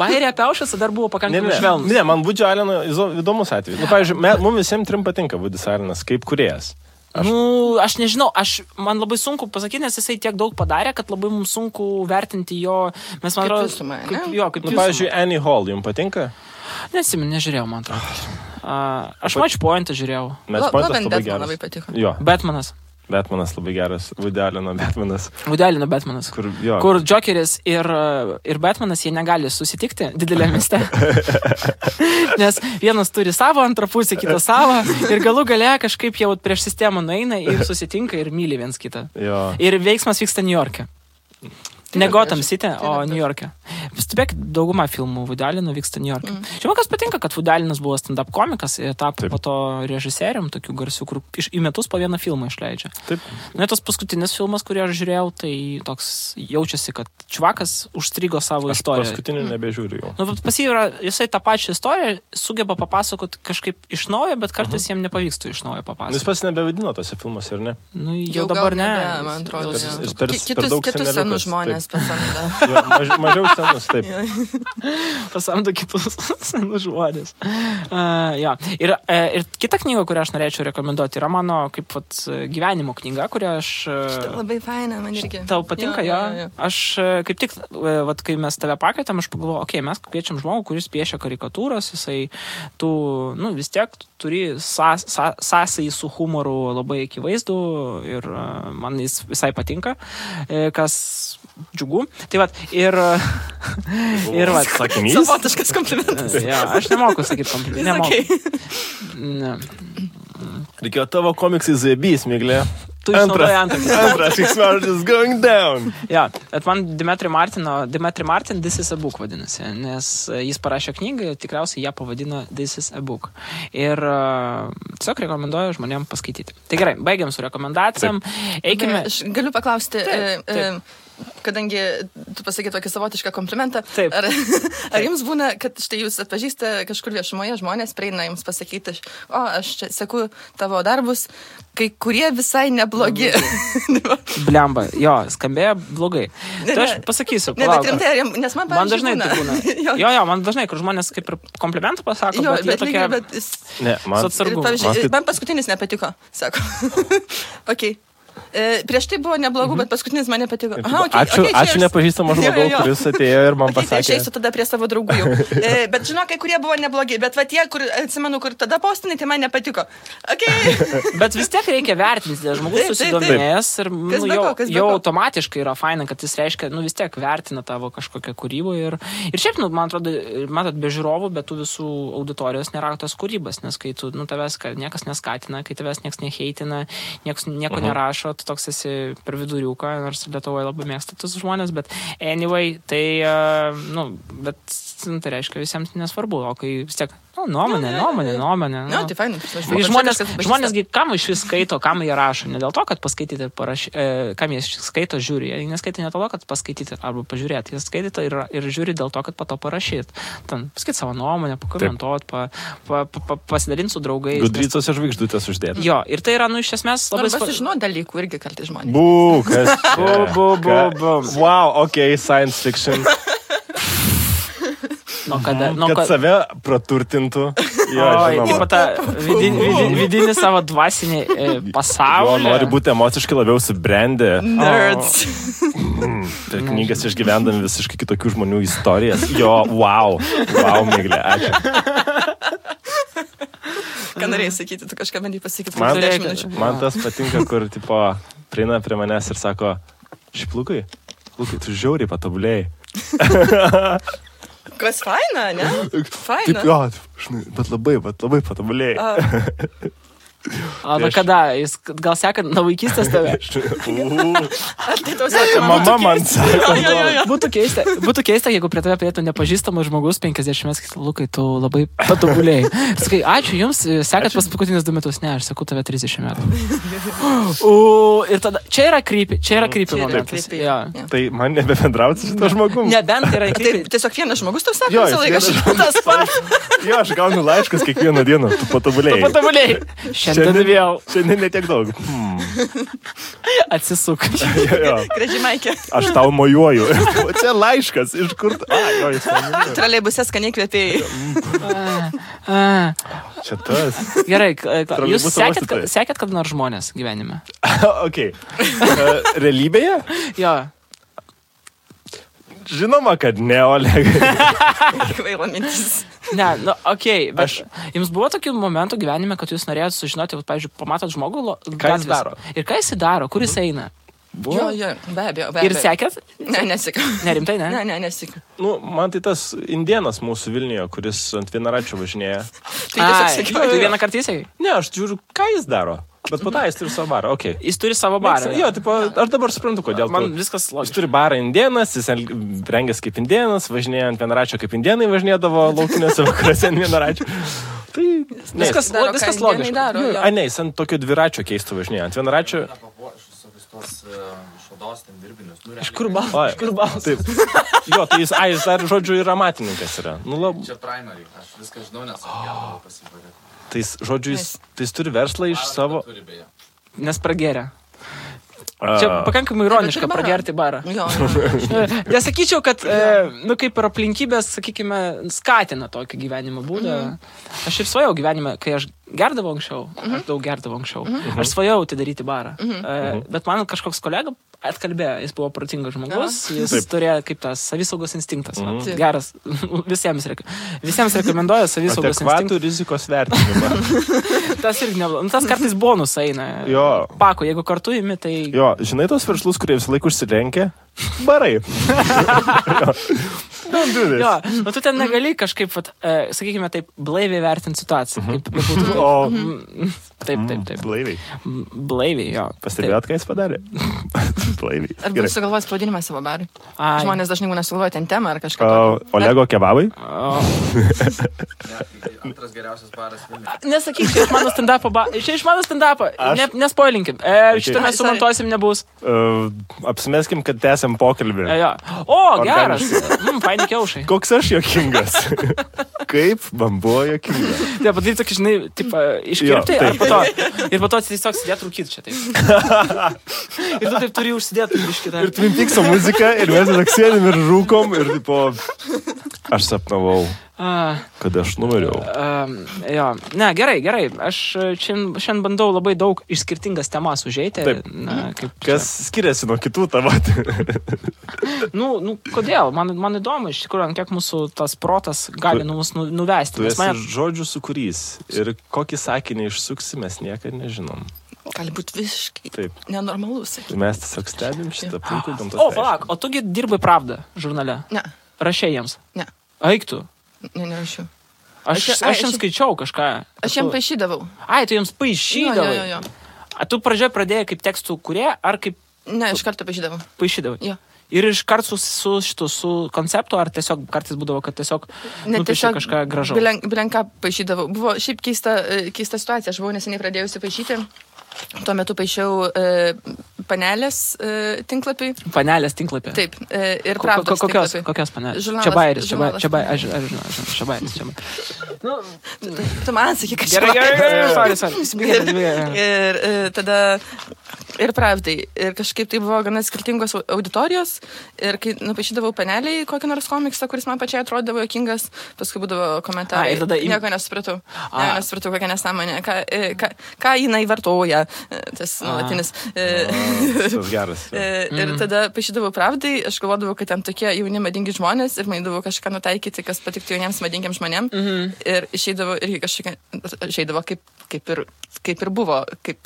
Bairė apie Aušvicą dar buvo pakankamai švelnus. Ne, man Woody Alleno įdomus atvejis. Nu, pavyzdžiui, mums visiems trim patinka Woody Allenas kaip kūrėjas. Aš nežinau, man labai sunku pasakyti, nes jisai tiek daug padarė, kad labai mums sunku vertinti jo... Mes, man atrodo, pavyzdžiui, Annie Hall, jums patinka? Nežiūrėjau, man atrodo. Aš Match Pointą žiūrėjau. Match Pointas labai geras. Labai patiko. Jo. Batmanas labai geras. Woody Alleno Batmanas. Kur Jokeris ir Batmanas, jie negali susitikti didelėme mieste. Nes vienas turi savo antrą pusę, kitas savo. Ir galų gale kažkaip jau prieš sistemą nueina ir susitinka ir myli viens kitą. Jo. Ir veiksmas vyksta New York'e. Ne Gotham City, o New York'e. Stebėk, dauguma filmų Woody Alleno vyksta New York'e. Čia man kas patinka, kad Woody Allenas buvo stand-up komikas ir tapo po to režisierium, tokių garsių, kur į metus po vieną filmą išleidžia. Taip. Nu, tas paskutinis filmas, kurį aš žiūrėjau, tai toks jaučiasi, kad čvakas užstrigo savo istoriją. Aš paskutinį nebežiūriu jau. Nu, pas jį yra, jisai tą pačią istoriją sugeba papasakoti kažkaip iš naujo, bet kartais jam nepavyksta iš naujo papasakoti. Jis pats nebevadino tose filmuose, ar ne? Nu, jau dabar ne. Man atrodo, kitus senus žmonės pasamdo. Mažiau senus, taip. Pasamdo kitus senus žmonės. Ir kita knyga, kurią aš norėčiau rekomenduoti, yra mano kaip gyvenimo knyga, kurią aš... Labai faina, man irgi. Tau patinka, jo? Aš kaip tik, kai mes tave pakvietėm, aš pagalvojau, mes kviečiam žmogų, kuris piešia karikatūras, jisai vis tiek turi sąsajį su humoru labai akivaizdų ir man jis visai patinka, kas džiugu. Tai vat, ir vat. Sakinys? Savotiškas komplimentas. Aš nemoku sakyti komplimentų. Reikėjo tavo komiksai zaibys, Miglė. Tu išnaudoji Antras X-Martin is going down. Bet man Dimitri Martin This is a Book vadinasi, nes jis parašė knygą, tikriausiai ją pavadino This is a Book. Ir tiesiog rekomenduoju žmonėm paskaityti. Tai gerai, baigiam su rekomendacijom. Eikime. Aš galiu paklausti, kadangi tu pasakė tokį savotišką komplimentą, ar jums būna, kad štai jūs atpažįsta kažkur viešumoje žmonės, prieina jums pasakyti, aš čia seku tavo darbus, kai kurie visai neblogi. Blemba, jo, skambėjo blogai. Tai aš pasakysiu. Ne, bet rimtai, nes man dažnai tai būna. Jo, man dažnai, kur žmonės kaip ir komplimentų pasako, bet jie tokie... Ne, man paskutinis nepatiko, sako. Ok. Prieš tai buvo neblogų, bet paskutinis man nepatiko. Aha, Ačiū nepažįstamą žmogų, kuris atėjo ir man pasakė. Tai aš eisiu tada prie savo draugų jau. Bet žinok, kai kurie buvo neblogi, bet va tie, kur atsimenu, kur tada postinai, tai man nepatiko. Okay. Bet vis tiek reikia vertinti, žmogus susidomėjęs ir jau automatiškai yra faina, kad jis reiškia, vis tiek vertina tavo kažkokią kūrybą ir šiaip, man atrodo, matot, be žiūrovų, bet tų visų auditorijos nėra tos kūrybos, nes kai tu, tavęs niekas neskatina, kai tavęs niekas neheitina, nieko nerašo, tu toks esi per viduriuką, nors Lietuvoje labai mėgsta tus žmonės, bet anyway, tai, bet tai reiškia visiems nesvarbu, o kai vis tiek, nuomonė. Tai fainai. Žmonės, kam iš vis skaito, kam jie rašo, ne dėl to, kad paskaityti ir parašyti, kam jie skaito, žiūri, jie neskaito ne dėl to, kad paskaityti arba pažiūrėti, jie skaito ir žiūri dėl to, kad po to parašyti. Ten paskaityti savo nuomonę, pakomentuoti, pasidalinti su draugais. Gudrycose žvaigždutės uždėti. Jo, ir tai yra, iš esmės labai svarbu. Žinau dalykų irgi kartais žmonės. Wow, okay, science fiction. Kad save praturtintų. Taip tą vidinį savo dvasinį pasaulį. Nori būti emociškai labiau subrendę. Nerds. Tai knygas išgyvendami visiškai kitokių žmonių istorijas. Jo, wow, Miglė, ačiū. Ką norėjai sakyti, tu kažką bandai pasakyti. Man tas patinka, kur prieina prie manęs ir sako, šiaip Lukai, tu žiauriai patobulėjai. Kas faina, ne? Faina. Taip, jo, bet labai patobulėjai. Kada? Jis gal seka nuo vaikystės tave? Mama man sako. Būtų keista, jeigu prie tave prietų nepažįstamas žmogus 50 metų, Lukai, tu labai patobulėjai. Sakai, ačiū jums, sekat paskutinius 2 metus. Ne, aš sakau tave 30 metų. Ir tada, čia yra creepy momentas. Tai man nebebendrauti su to žmogum. Nebent yra creepy. Tiesiog vienas žmogus tau sako visą laiką. Jo, aš gaunu laiškus kiekvieną dieną, tu patobulėjai. Šiandien vėl. Šiandien netiek daug. Atsisuk. Graži Maikė. Aš tau mojuoju. O čia laiškas. Iš kur? Troleibuse skaniai kvepėjai. Čia tas. Gerai, jūs sekėt kada nors žmonės gyvenime? Ok. Realybėje? Jo. Žinoma, kad ne, Olegai. Kvaila mintis. Ne, bet jums buvo tokių momentų gyvenime, kad jūs norėjote sužinoti, pavyzdžiui, pamatot žmogų, ką jis daro. Ir ką jis daro, kur jis eina? Jo, be abejo. Ir sekėt? Ne, nesekiau. Nerimtai, ne? Ne, nesekiau. Man tai tas indėnas mūsų Vilniuje, kuris ant vienaračio važinėja. Tai tiesiog sekiau. Tu vieną kartą įsėkai? Ne, aš žiūriu, ką jis daro. Bet po to jis turi savo barą, okei. Jis turi savo barą. Jo, aš dabar suprantu, kodėl. Man viskas logiška. Jis turi barą indėnas, jis rengęs kaip indėnas, važinėja ant vienaračio kaip indėnai važinėdavo laukinėse vakaruose ant vienaračio. Tai viskas logiška. Ne, jis ant tokio dviračio keisto važinėja. Ant vienaračio... Iš kur balas? Taip. Jo, tai jis dar, žodžiu, ir amatininkas yra. Čia primary, aš viską žinau, nes aš pasibarėt. Tai žodžiu, jis turi verslą iš savo... Nes prageria. Čia pakankamai ironiška pragerti barą. Nesakyčiau, kad, kaip ir aplinkybės, sakykime, skatina tokį gyvenimo būdą. Aš ir svajau gyvenime, kai aš gerdavau anksčiau, aš daug gerdavau anksčiau. Aš svajau atidaryti barą. Bet man kažkoks kolega atkalbėjo, jis buvo protingas žmogus, jis turėjo kaip tas savisaugos instinktas. Geras, visiems rekomenduoju savisaugos instinktas. Adekvatų rizikos vertinimą. Tas irgi neblogai. Tas kartais bonus eina. Pako, jeigu kartu imi, tai... Jo, žinai tos verslus, kurie visą laiką užsirenkia? Barai. Jo, tu ten negali kažkaip, sakykime taip, blaiviai vertinti situaciją. Taip. Blaiviai, jo. Pastebėjot, ką jis padarė? Blaiviai. Ar bus sugalvojęs pavadinimą savo barui? Žmonės dažnai būna sugalvoja ten temą ar kažką. Olego kebabai? Antras geriausias baras Vilniuje. Nesakyk, čia iš mano stand-upą. Nespoilinkim. Šitą mes sumontuosim nebus. Apsimeskim, kad tęsiam pokalbį. O, geras. Faini kiaušai. Koks aš jokingas. Kaip man buvo jokingas. Tai padaryti tokį, žinai, iškirpti, ir po to tiesiog sėdėti rūkyti čia taip. Ir tu taip turi užsidėti biškitą. Ir Twin Peakso muzika, ir mes tiesiog sėdim ir rūkom, ir tipo, aš sapnavau Kad aš numeriau. Jo, ne, gerai. Aš šiandien bandau labai daug iš skirtingas temas užeiti. Kas skiriasi nuo kitų tavo? Kodėl? Man įdomu, iš tikrųjų, kiek mūsų tas protas gali mus nuvesti. Tu esi žodžių sukūrys. Ir kokį sakinį išsuksi, mes niekada nežinom. Gali būti visiškai nenormalus. Mes tiesiog stebim šitą puikų gamtos. Palauk, o tugi dirbai Pravdą žurnale? Ne. Rašė jiems? Ne. Eik tu? Ne, nerašiau. Aš jiems skaičiau kažką. Aš jiems paišydavau. Tu jiems paišydavai? Jo. Tu pradžioje pradėjai kaip tekstų kurie, ar kaip... Ne, iš karto paišydavau. Paišydavai? Jo. Ir iš karto su konceptu, ar tiesiog kartais būdavo, kad tiesiog nupiešė kažką gražaus? Bilenką paišydavau. Buvo šiaip keista situacija. Aš buvau neseniai pradėjusi paišyti. Tuo metu paišiau panelės tinklapį. Panelės tinklapį? Taip. Ir Pravdos tinklapį. Kokios panelės? Žurnalas. Čabairis. Aš žinau. Tu man sakai, kad Gerai. Ir tada ir Pravdai. Ir kažkaip tai buvo gana skirtingos auditorijos. Ir kai nupaišydavau paneliai kokį nors komiksą, kuris man pačiai atrodavo jokingas, paskui būdavo komentarai. Nieko nesupratau. Nesupratau, kokią nesąmonę. Ką jinai vartoja. Tas nuolatinis. Tas geras. Ir tada paišydavau Pravdai. Aš galvodavau, kad ten tokie jauni madingi žmonės ir manydavau kažką nutaikyti, kas patiktų jauniems madingiams žmonėm. Ir išeidavo irgi kažkokia, kaip ir buvo, kaip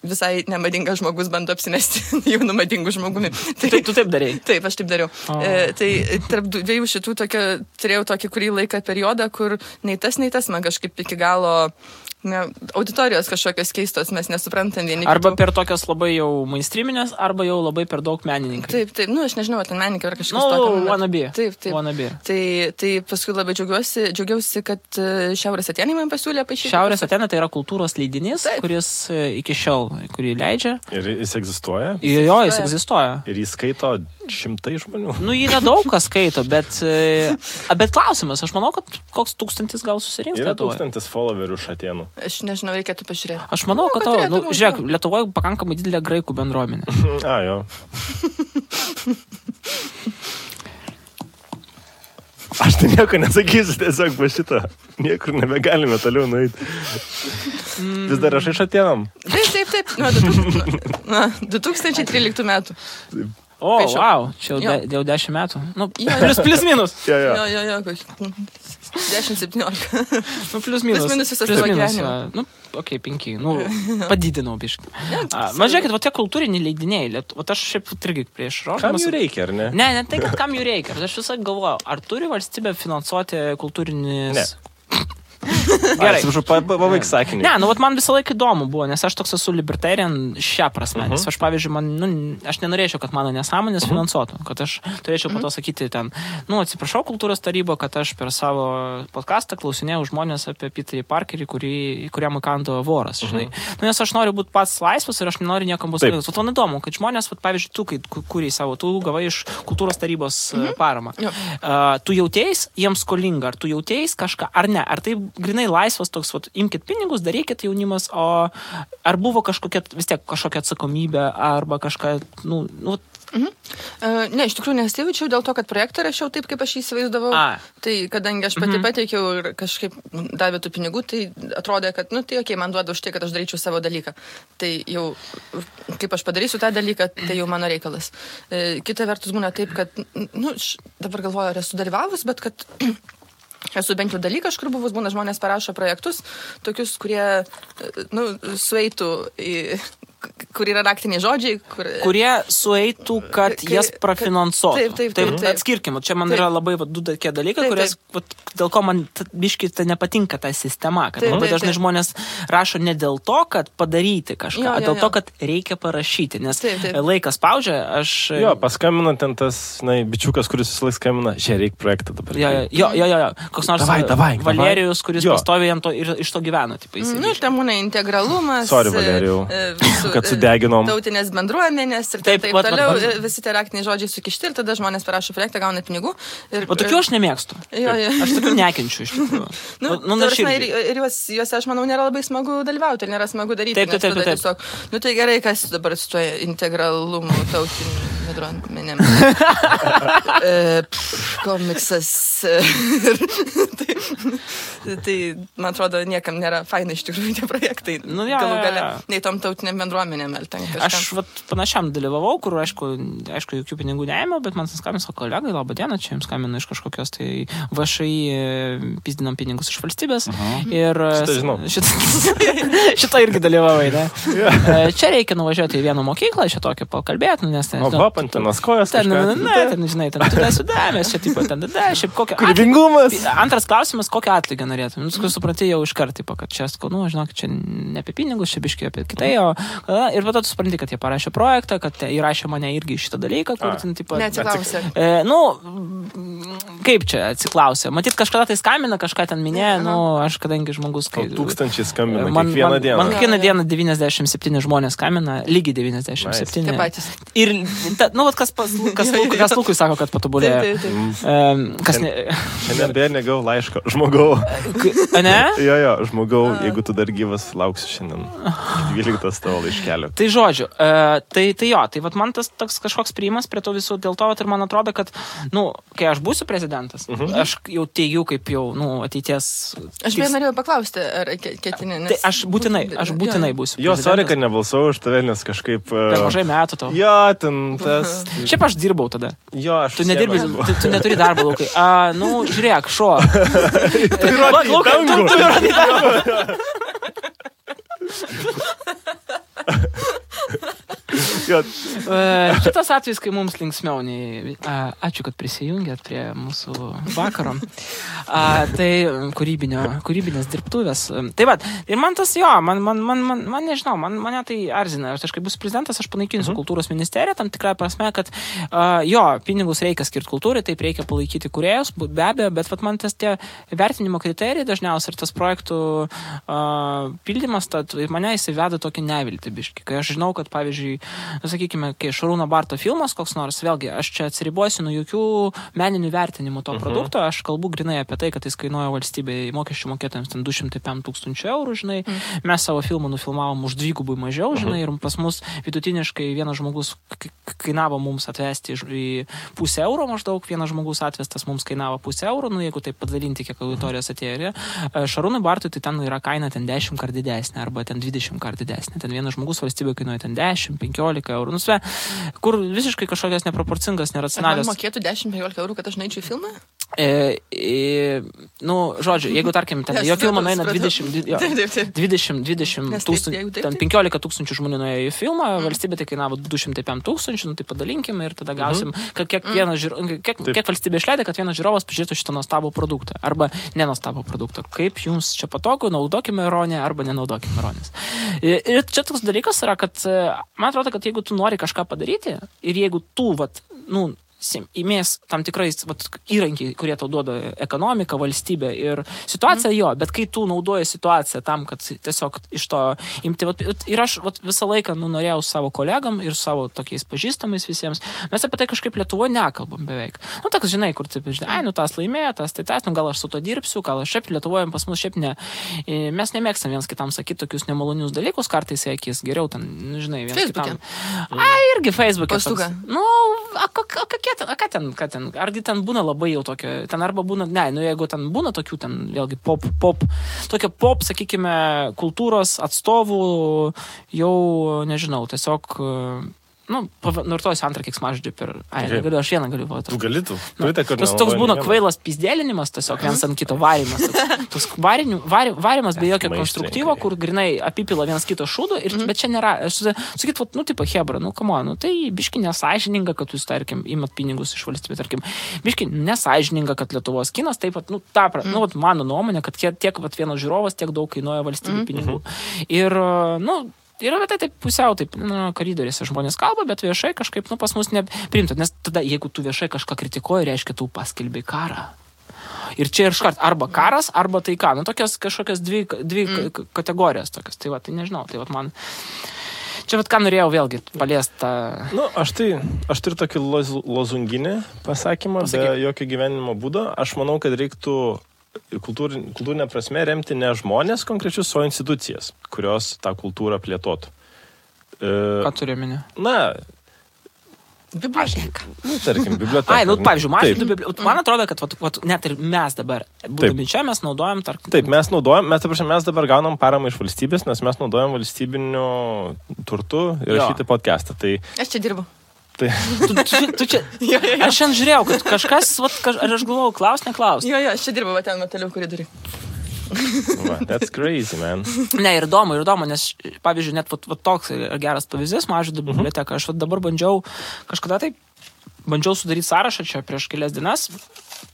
visai nemadingas žmogus bando apsimesti jaunų madingų žmogumi. Tu taip darei? Taip, aš taip dariau. Tai tarp dviejų šitų turėjau tokį kurį laiką periodą, kur nei tas man kažkaip iki galo auditorijos kažkokios keistos, mes nesuprantam vieni. Arba per tokios labai jau mainstreaminės, arba jau labai per daug menininkai. Taip, aš nežinau, ten menininkai ar kažkas tokio. Wannabe. Taip. Wannabe. Tai paskui labai džiaugiausi, kad Šiaurės Atėnai man pasiūlė paišyti. Šiaurės Atėnai tai yra kultūros leidinys, kuris iki šiol, kurį leidžia. Ir jis egzistuoja? Jo, jis egzistuoja. Ir jis skaito 100 žmonių? Jį nedaug kas skaito, bet klausimas, aš manau, kad koks 1000 gal susirinks. Yra 1000 followerių iš Atėnų. Aš nežinau, reikėtų pažiūrėti. Aš manau, kad žiūrėk, Lietuvoje pakankamai didelė graikų bendruomenė. Jo. Aš tai nieko nesakysiu, tiesiog po šitą. Niekur nebegalime toliau nueiti. Vis dar aš iš Atėnam. Taip. Nuo 2013 metų. Wow, čia jau 10 metų. Plius minus. Jo, 10-17. Plius minus visas tavo gyvenimą. 5. Padidinau biškį. Žiūrėkit, tie kultūriniai leidiniai, aš šiaip irgi prieš rožamas. Kam jų reikia, ar ne? Ne, tai kad kam jų reikia. Aš visą galvoju, ar turi valstybė finansuoti kultūrinis... Ne. Gerai. Pabaig sakinį. Ne, man visą laiką įdomu buvo, nes aš toks esu libertarian šią prasme. Nes aš, pavyzdžiui, aš nenorėčiau, kad mano nesąmonės finansuotų. Kad aš turėčiau po to sakyti ten, atsiprašau kultūros tarybo, kad aš per savo podcastą klausinėjau žmonės apie Peterį Parkerį, kuriam įkando voras, žinai. Nes aš noriu būti pats laisvas ir aš nenoriu niekam bus laisvas. Man įdomu, kad žmonės, pavyzdžiui, tu, kai kūrei savo, tu gavai iš kultūros tarybos paramą. Tu jautėjais jiems skolinga, ar tu jautėjais kažką, ar ne? Ar tai grinai laisvas toks, imkit pinigus, darykit jaunimas, o ar buvo kažkokia atsakomybė, arba kažką, Ne, iš tikrųjų nesijaučiau dėl to, kad projektą rašiau taip, kaip aš įsivaizdavau. Tai kadangi aš pati pateikiau ir kažkaip davė tų pinigų, tai atrodė, kad, man duoda už tai, kad aš daryčiau savo dalyką. Tai jau, kaip aš padarysiu tą dalyką, tai jau mano reikalas. Kita vertus būna taip, kad, dabar galvoju, ar esu dalyvavus, bet kad... Esu bent jau dalykas, kur buvus, būna žmonės parašo projektus, tokius, kurie, sueitų į... kur yra raktiniai žodžiai, kurie sueitų, kad jas prafinansuotų. Taip. Atskirkim, čia man yra labai du tokie dalykai, kurias, dėl ko man biškai nepatinka ta sistema, kad labai dažnai žmonės rašo ne dėl to, kad padaryti kažką, o dėl to, kad reikia parašyti, nes laikas spaudžia, aš... Jo, paskambina ten tas, bičiukas, kuris visą laiką skambina, reikia projektą dabar. Jo, koks nors Valerijus, kuris pastovi jam to ir iš to gyvena. Ten būna integralumas. Sorry, Valerijau. kad sudeginom. Tautinės bendruomenės ir taip toliau. Visi tie raktiniai žodžiai sukišti ir tada žmonės parašo projektą, gauna pinigų. O tokių aš nemėgstu. Aš tokių nekenčiu iš tikrųjų. Ir juose, aš manau, nėra labai smagu dalyvauti ir nėra smagu daryti. Taip. Tiesiog, tai gerai, kas dabar su tuo integralumu tautiniu bendruomenėm. Komiksas. Tai, man atrodo, niekam nėra faina iš tikrųjų tie projektai. Galų gale, nei tom tautiniam bendruomenėm. Aš panašiam dalyvavau, kur, aišku, jokių pinigų neėmiau, bet man skambino savo kolegai, labą dieną, čia jums skambino iš kažkokios tai VŠI pizdinam pinigus iš valstybės. Ir šitą irgi dalyvavai, ne? Čia reikia nuvažiuoti į vieną mokyklą, čia tokį pakalbėti, nes ten... Pantinas kojas kažką. Ten, žinai, ten sudėmės, čia taip pat, šiaip kokią... Kūrybingumas. Antras klausimas, kokią atlygį norėtum. Supranti jau iš karto, kad čia, žinok, čia ne apie pinigus, čia biškai apie kitai, ir po to tu supranti, kad jie parašė projektą, kad įrašė mane irgi šitą dalyką, kur ten, taip pat... Neatsiklausė. Kaip čia atsiklausė? Matyt, kažkada tai skambina, kažką ten minėjo, aš kadangi žmogus... Tūkstančiai skambina kiekvieną dieną. Man kiekvieną dieną 97 žmonės skambina, lygiai 97. Tie patys. Ir, kas Lukui sako, kad patobulėjo. Šiandien beje negau laiško. Žmogau. Ne? Jo, žmogau, jeigu tu dar gyvas, lauksiu šiandien 12 tavo laiškelio. Tai žodžiu, tai vat man tas toks kažkoks priimas prie to visų, dėl to ir man atrodo, kad, kai aš būsiu prezidentas, aš jau teigiu kaip jau, ateities... Aš beje norėjau paklausti, ar ketini, nes... Tai aš būtinai būsiu. Jo, sorry, kad nebalsau už tave, nes kažkaip... Per mažai metų to. Jo, ten tas... Šiaip aš dirbau tada. Jo, aš... Tu nedirbi, tu neturi darbo, Lukai. Žiūrėk, šuo. Tu įrodai dangų. Šitas atvejs, kai mums linksmiau, ačiū, kad prisijungėt prie mūsų vakaro. Tai kūrybinės dirbtuvės. Tai va, ir man tas man nežinau, mane tai arzina. Aš kai bus prezidentas, aš panaikinsiu kultūros ministeriją, tam tikrą prasme, kad pinigus reikia skirti kultūrai, taip reikia palaikyti kūrėjus, be abejo, bet man tas tie vertinimo kriterijai dažniausiai ir tas projektų pildymas, mane įsiveda tokį neviltį biškį. Kai aš žinau, kad pavyzdžiui, sakykime, kai Šarūno Barto filmas koks nors, vėlgi, aš čia atsiribuosiu nuo jokių meninių vertinimų to produkto, aš kalbu grinai apie tai, kad jis kainuoja valstybei mokesčių mokėtojams ten 205 000 eurų, žinai, mes savo filmą nufilmavom už 2 mažiau, žinai, ir pas mus vidutiniškai vienas žmogus kainavo mums atvesti į 0,5 euro maždaug, vienas žmogus atvestas mums kainavo 0,5 euro, jeigu taip padalinti, kiek auditorijos atėjo. Šarūnui Bartui tai ten yra kaina ten 10 kart didesnė arba ten 20 kart didesnė. Ten vienas žmogus valstybė kainuoja ten 10-15 eurų. Kur visiškai kažkokios neproporcingas, neracionalios. Ar man mokėtų 10-15 eurų, kad aš neičiau filmą? Žodžiu, jeigu tarkim, ten jo filmą nueina 20 tūkstančių, ten 15 tūkstančių žmonių nuėjo į filmą, valstybė tai kainavo 205 000, tai padalinkime ir tada gausim, kiek valstybė išleidė, kad vienas žiūrovas pažiūrėtų šitą nuostabų produktą arba nenuostabų produktą. Kaip jums čia patogu, naudokime ironiją arba nenaudokime ironijos. Ir čia toks dalykas yra, kad man atrodo, kad jeigu tu nori kažką padaryti ir jeigu tu, įmės tam tikrais įrankiai, kurie tau duoda ekonomika, valstybė ir situacija bet kai tu naudoji situaciją tam, kad tiesiog iš to imti, ir aš visą laiką norėjau savo kolegam ir savo tokiais pažįstamais visiems, mes apie tai kažkaip Lietuvoje nekalbam beveik. Toks, žinai, kur taip, tas laimėjo, tas, gal aš su to dirbsiu, gal aš šiaip Lietuvoje pas mus šiaip ne. Mes nemėgstam viens kitam sakyti tokius nemalonius dalykus, kartais akis geriau ten, žinai, viens kitam. Irgi Facebook'e. Ką ten, argi ten būna labai jau tokio, ten arba būna, jeigu ten būna tokių, ten vėlgi pop, sakykime, kultūros atstovų, jau, nežinau, tiesiog, nurtojus antrą keiksmažodį per... negaliu, aš vieną galiu duoti. Tu galėtų. Toks būna kvailas pizdėlinimas, tiesiog viens ant kito varimas. Toks varimas be jokio konstruktyvo, kur grinai apipila vienas kito šūdų, bet čia nėra, aš sakyt, hebra, tai biški nesąžininga, kad jūs, tarkim, imat pinigus iš valstybės, tarkim, biški nesąžininga, kad Lietuvos kinas, taip pat, mano nuomonė, kad tiek vienas žiūrovas tiek daug kainuoja valstybė pinigų. Ir, yra taip pusiau, koridoriuose žmonės kalba, bet viešai kažkaip, pas mus neprimta, nes tada, jeigu tu viešai kažką kritikuoji, reiškia, tu paskelbei karą. Ir čia ir škart arba karas, arba taika. Tokios kažkokios dvi kategorijos tokios. Tai nežinau, man... Čia vat ką norėjau vėlgi paliesti tą... Nu, aš turiu tokį lozunginį pasakymą, be jokio gyvenimo būdo. Aš manau, kad reiktų kultūrinė prasme remti ne žmonės konkrečius, o institucijas, kurios tą kultūrą plėtotų. Ką turi minė? Na... Biblioteka. Tarkim, biblioteka. Ai, pavyzdžiui, man atrodo, kad net ir mes dabar, būdami čia, mes naudojam... Taip, mes dabar gaunam paramą iš valstybės, nes mes naudojam valstybiniu turtu ir šitą podcastą. Tai... Aš čia dirbu. Tai... Tu čia... Aš šiandien žiūrėjau, kad kažkas, ar aš galvojau, neklaus. Jo, aš čia dirbu, ten mateliu koridoriui. That's crazy, man. Ne, ir įdomu, nes, pavyzdžiui, net toks geras pavyzdys, Mažvydo biblioteka. Aš dabar bandžiau sudaryti sąrašą čia prieš kelias dienas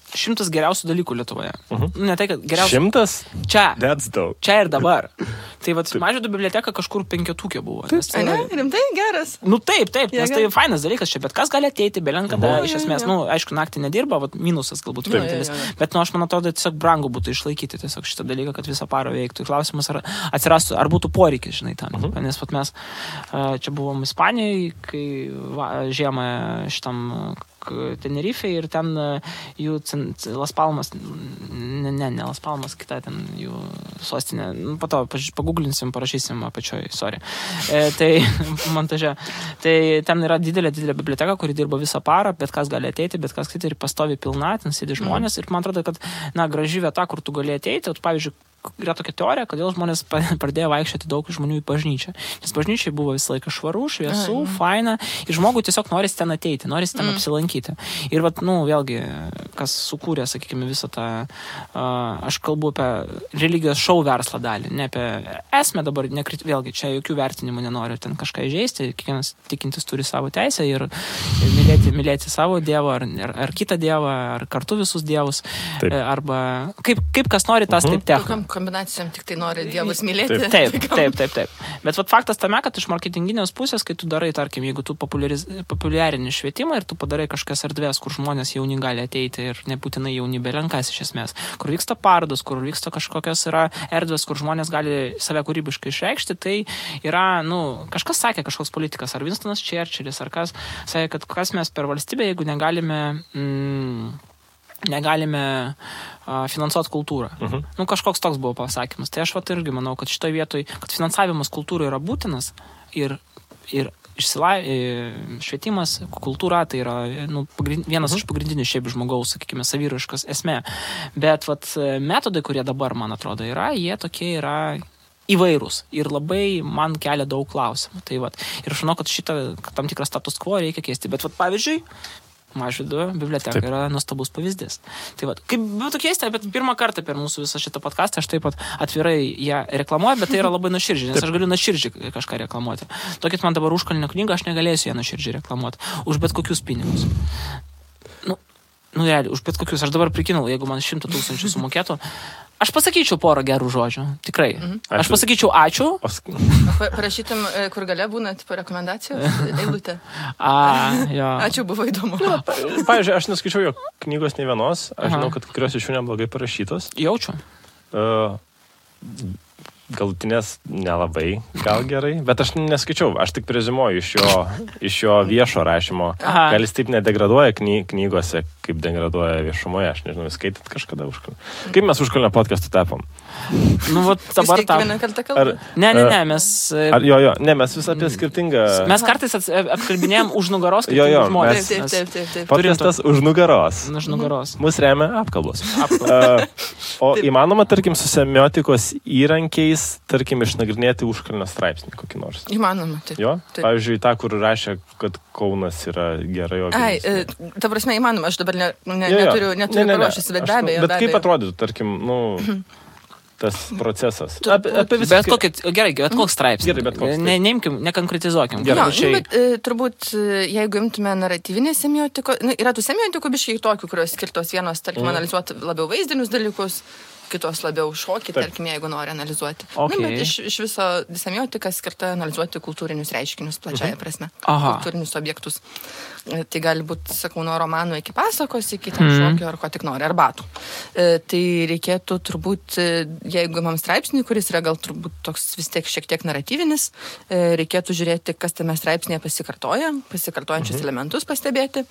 100 geriausių dalykų Lietuvoje. Ne tai, kad geriausių... 100? Čia. That's dope. Čia ir dabar. Tai Mažvydo biblioteka kažkur 5 buvo. Ne, rimtai geras. Nu taip, nes tai fainas dalykas čia, bet kas gali ateiti, belenkada, iš esmės, aišku, naktį nedirba, minusas galbūt vienintelis, bet aš man atrodo, tiesiog brangu būtų išlaikyti tiesiog šitą dalyką, kad visą parą veiktų. Klausimas, ar atsirastų, ar būtų poreikis, žinai, tam. Nes mes čia buvom Ispanijoje, kai žiemą šitam Tenerife ir ten jų Las Palmas, ne Las Palmas, kita ten jų sostinė. Po to paguglinsim, parašysim apačioj, sorry. Tai montaže. Tai ten yra didelė biblioteka, kuri dirba visą parą, bet kas gali ateiti, bet kas kiti ir pastovi pilna, ten sėdi žmonės. Ir man atrodo, kad, graži vieta, kur tu gali ateiti, pavyzdžiui, yra tokia teorija, kodėl žmonės pradėjo vaikščioti daug žmonių į bažnyčią. Nes bažnyčiai buvo visą laiką švaru, šviesų, faina, ir žmogui tiesiog norisi ten ateiti, norisi ten apsilankyti. Ir vėlgi, kas sukūrė, sakykime, visą tą, aš kalbu apie religijos šou verslą dalį, ne apie esmę dabar, vėlgi, čia jokių vertinimų nenoriu ten kažką įžeisti, kiekvienas tikintis turi savo teisę ir mylėti savo dievą, ar kitą dievą, ar kartu visus dievus, arba kaip kas nori, tas taip techa. Kombinacijom tik tai nori dievus mylėti. Taip. Bet faktas tame, kad iš marketinginės pusės, kai tu darai, tarkim, jeigu tu populiarini švietimą ir tu padarai kažkokias erdvės, kur žmonės jauni gali ateiti ir nebūtinai jauni belenkas iš esmės, kur vyksta parodos, kur vyksta kažkokios yra erdvės, kur žmonės gali save kūrybiškai išreikšti, tai yra, kažkas sakė, kažkoks politikas, ar Winstonas Churchillis, ar kas sakė, kad kas mes per valstybę, jeigu negalime finansuoti kultūrą. Kažkoks toks buvo pasakymas. Tai aš irgi manau, kad šitoje vietoje, kad finansavimas kultūrai yra būtinas ir švietimas, kultūra, tai yra vienas iš pagrindinių šiaip žmogaus, sakykime, saviraiškos esmė. Bet metodai, kurie dabar, man atrodo, jie tokie yra įvairūs ir labai man kelia daug klausimų. Tai ir aš žinau, kad šitą tam tikrą status quo reikia keisti. Bet pavyzdžiui, Mažvydo biblioteka yra nuostabus pavyzdys. Tai kaip būtų keista, bet pirmą kartą per mūsų visą šitą podcastą aš taip pat atvirai ją reklamuoju, bet tai yra labai nuoširdžiai, nes aš galiu nuoširdžiai kažką reklamuoti. Tokit man dabar užkalnio knygą, aš negalėsiu ją nuoširdžiai reklamuoti. Už bet kokius pinigus. Realiai, už bet kokius. Aš dabar prikinau, jeigu man 100 000 sumokėtų, aš pasakyčiau porą gerų žodžių. Tikrai. Aš pasakyčiau ačiū. Parašytum, kur gale būna rekomendacijos, eilutė. Jo. Ačiū, buvo įdomu. Pavyzdžiui, aš neskaičiau jo knygos nei vienos. Aš žinau, kad kurios iš jų neblogai parašytos. Jaučiu. Galutinės nelabai, gal gerai, bet aš neskaičiau, aš tik prezimuoju iš jo viešo rašymo. Gal jis taip nedegraduoja knygose, kaip degraduoja viešumoje, aš nežinau, skaitat kažkada užkalnę. Kaip mes užkalnę podcastų tapom? Dabar tam. Ne, mes... mes vis apie skirtingą... Mes kartais apkalbinėjom už nugaros skirtingus žmonės. Taip. Podcastas už nugaros. Už nugaros. Mus remia apkalbos. O įmanoma, tarkim, su semiotikos įrankiais, tarkim, išnagrinėti užkalnio straipsnį kokį nors? Įmanoma, taip. Jo? Pavyzdžiui, tą, kur rašė, kad Kaunas yra gerai organizuotas. Ta prasme, įmanoma, aš dabar neturiu paruošęs, bet be abejo. Bet kaip atrodytų, tarkim, tas procesas? Bet koks straipsnis. Neimkim, nekonkretizuokim. Bet turbūt, jeigu imtume naratyvinę semiotiką, yra tų semiotikų biškai tokių, kurios skirtos vienos, tarkim, analizuoti labiau vaizdinius dalykus, kitos labiau šokį, tarkim, jeigu nori analizuoti. Okay. Bet iš viso semiotika skirta analizuoti kultūrinius reiškinius plačiaja prasme, kultūrinius objektus. Tai gali būti, sakau, nuo romanų iki pasakos, iki ten šokio ar ko tik nori, ar batų. Tai reikėtų turbūt, jeigu imam straipsnį, kuris yra gal turbūt toks vis tiek šiek tiek naratyvinis, reikėtų žiūrėti, kas tame straipsnėje pasikartojančius elementus pastebėti,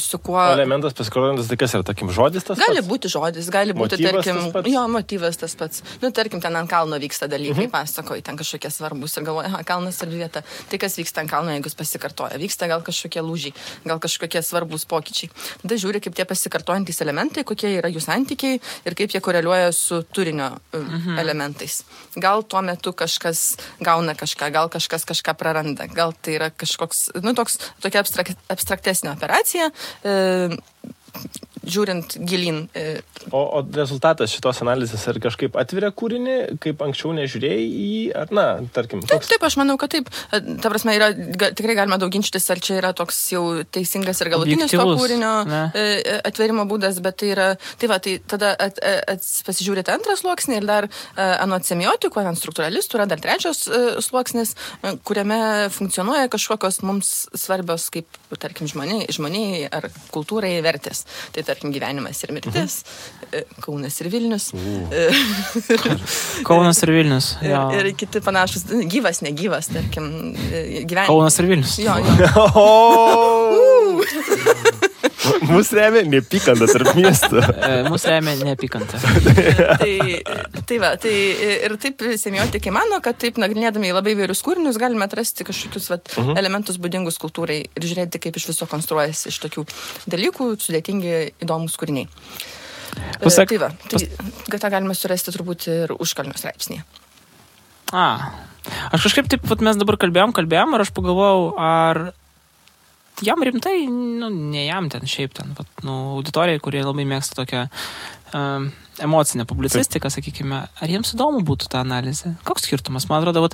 su kuo... Elementas pasikartojantis, tai kas yra, tarkim, žodis tas pats? Gali būti žodis, gali būti, tarkim, motyvas tas pats. Tarkim, ten ant kalno vyksta dalykai, pasakoji, ten kažkokie svarbus ir galvoja, kalnas ir vieta. Tai kas vyksta ant kalno, jeigu jis pasikartoja? Vyksta gal kažkokie lūžiai, gal kažkokie svarbus pokyčiai. Tada žiūri, kaip tie pasikartojantys elementai, kokie yra jų santykiai ir kaip jie koreliuoja su turinio elementais. Gal tuo metu kažkas gauna kažką, gal kažkas kažką praranda, gal tai yra kažkoks, tokia abstraktesnė operacija, žiūrint gilin. O rezultatas šitos analizės ar kažkaip atveria kūrinį, kaip anksčiau nežiūrėjai į, ar tarkim, toks... Taip, aš manau, kad taip. Ta prasme, tikrai galima daug ginčytis, ar čia yra toks jau teisingas ir galutinis to kūrinio atverimo būdas, bet tai yra, tai tada pasižiūrėti antrą sluoksnį ir dar anot semiotikų, anot struktūralistų yra dar trečias sluoksnis, kuriame funkcionuoja kažkokios mums svarbios, kaip, tarkim, žmoniai ar kultūrai vertės. Tai tarkim gyvenimas ir mirtis, Kaunas ir Vilnius. Kaunas ir Vilnius. Ir kiti panašus, gyvas, negyvas, tarkim, gyvenimas. Kaunas ir Vilnius. Jo. Mūsų remia neapykanta tarp miestų. Mūsų remia neapykanta. Tai ir taip semiotikai mano, kad taip nagrinėdami į labai įvairius kūrinius galime atrasti kažkokius elementus būdingus kultūrai ir žiūrėti, kaip iš viso konstruojasi iš tokių dalykų sudėtingi įdomus kūriniai. Tai galime surasti turbūt ir užkalnio straipsnėje. Aš kažkaip taip, mes dabar kalbėjom ir aš pagalvojau, ar jam rimtai, ne jam ten, šiaip ten, auditorijai, kurie labai mėgsta tokią emocinę publicistiką, sakykime, ar jiems įdomu būtų ta analizė? Koks skirtumas? Man atrodo,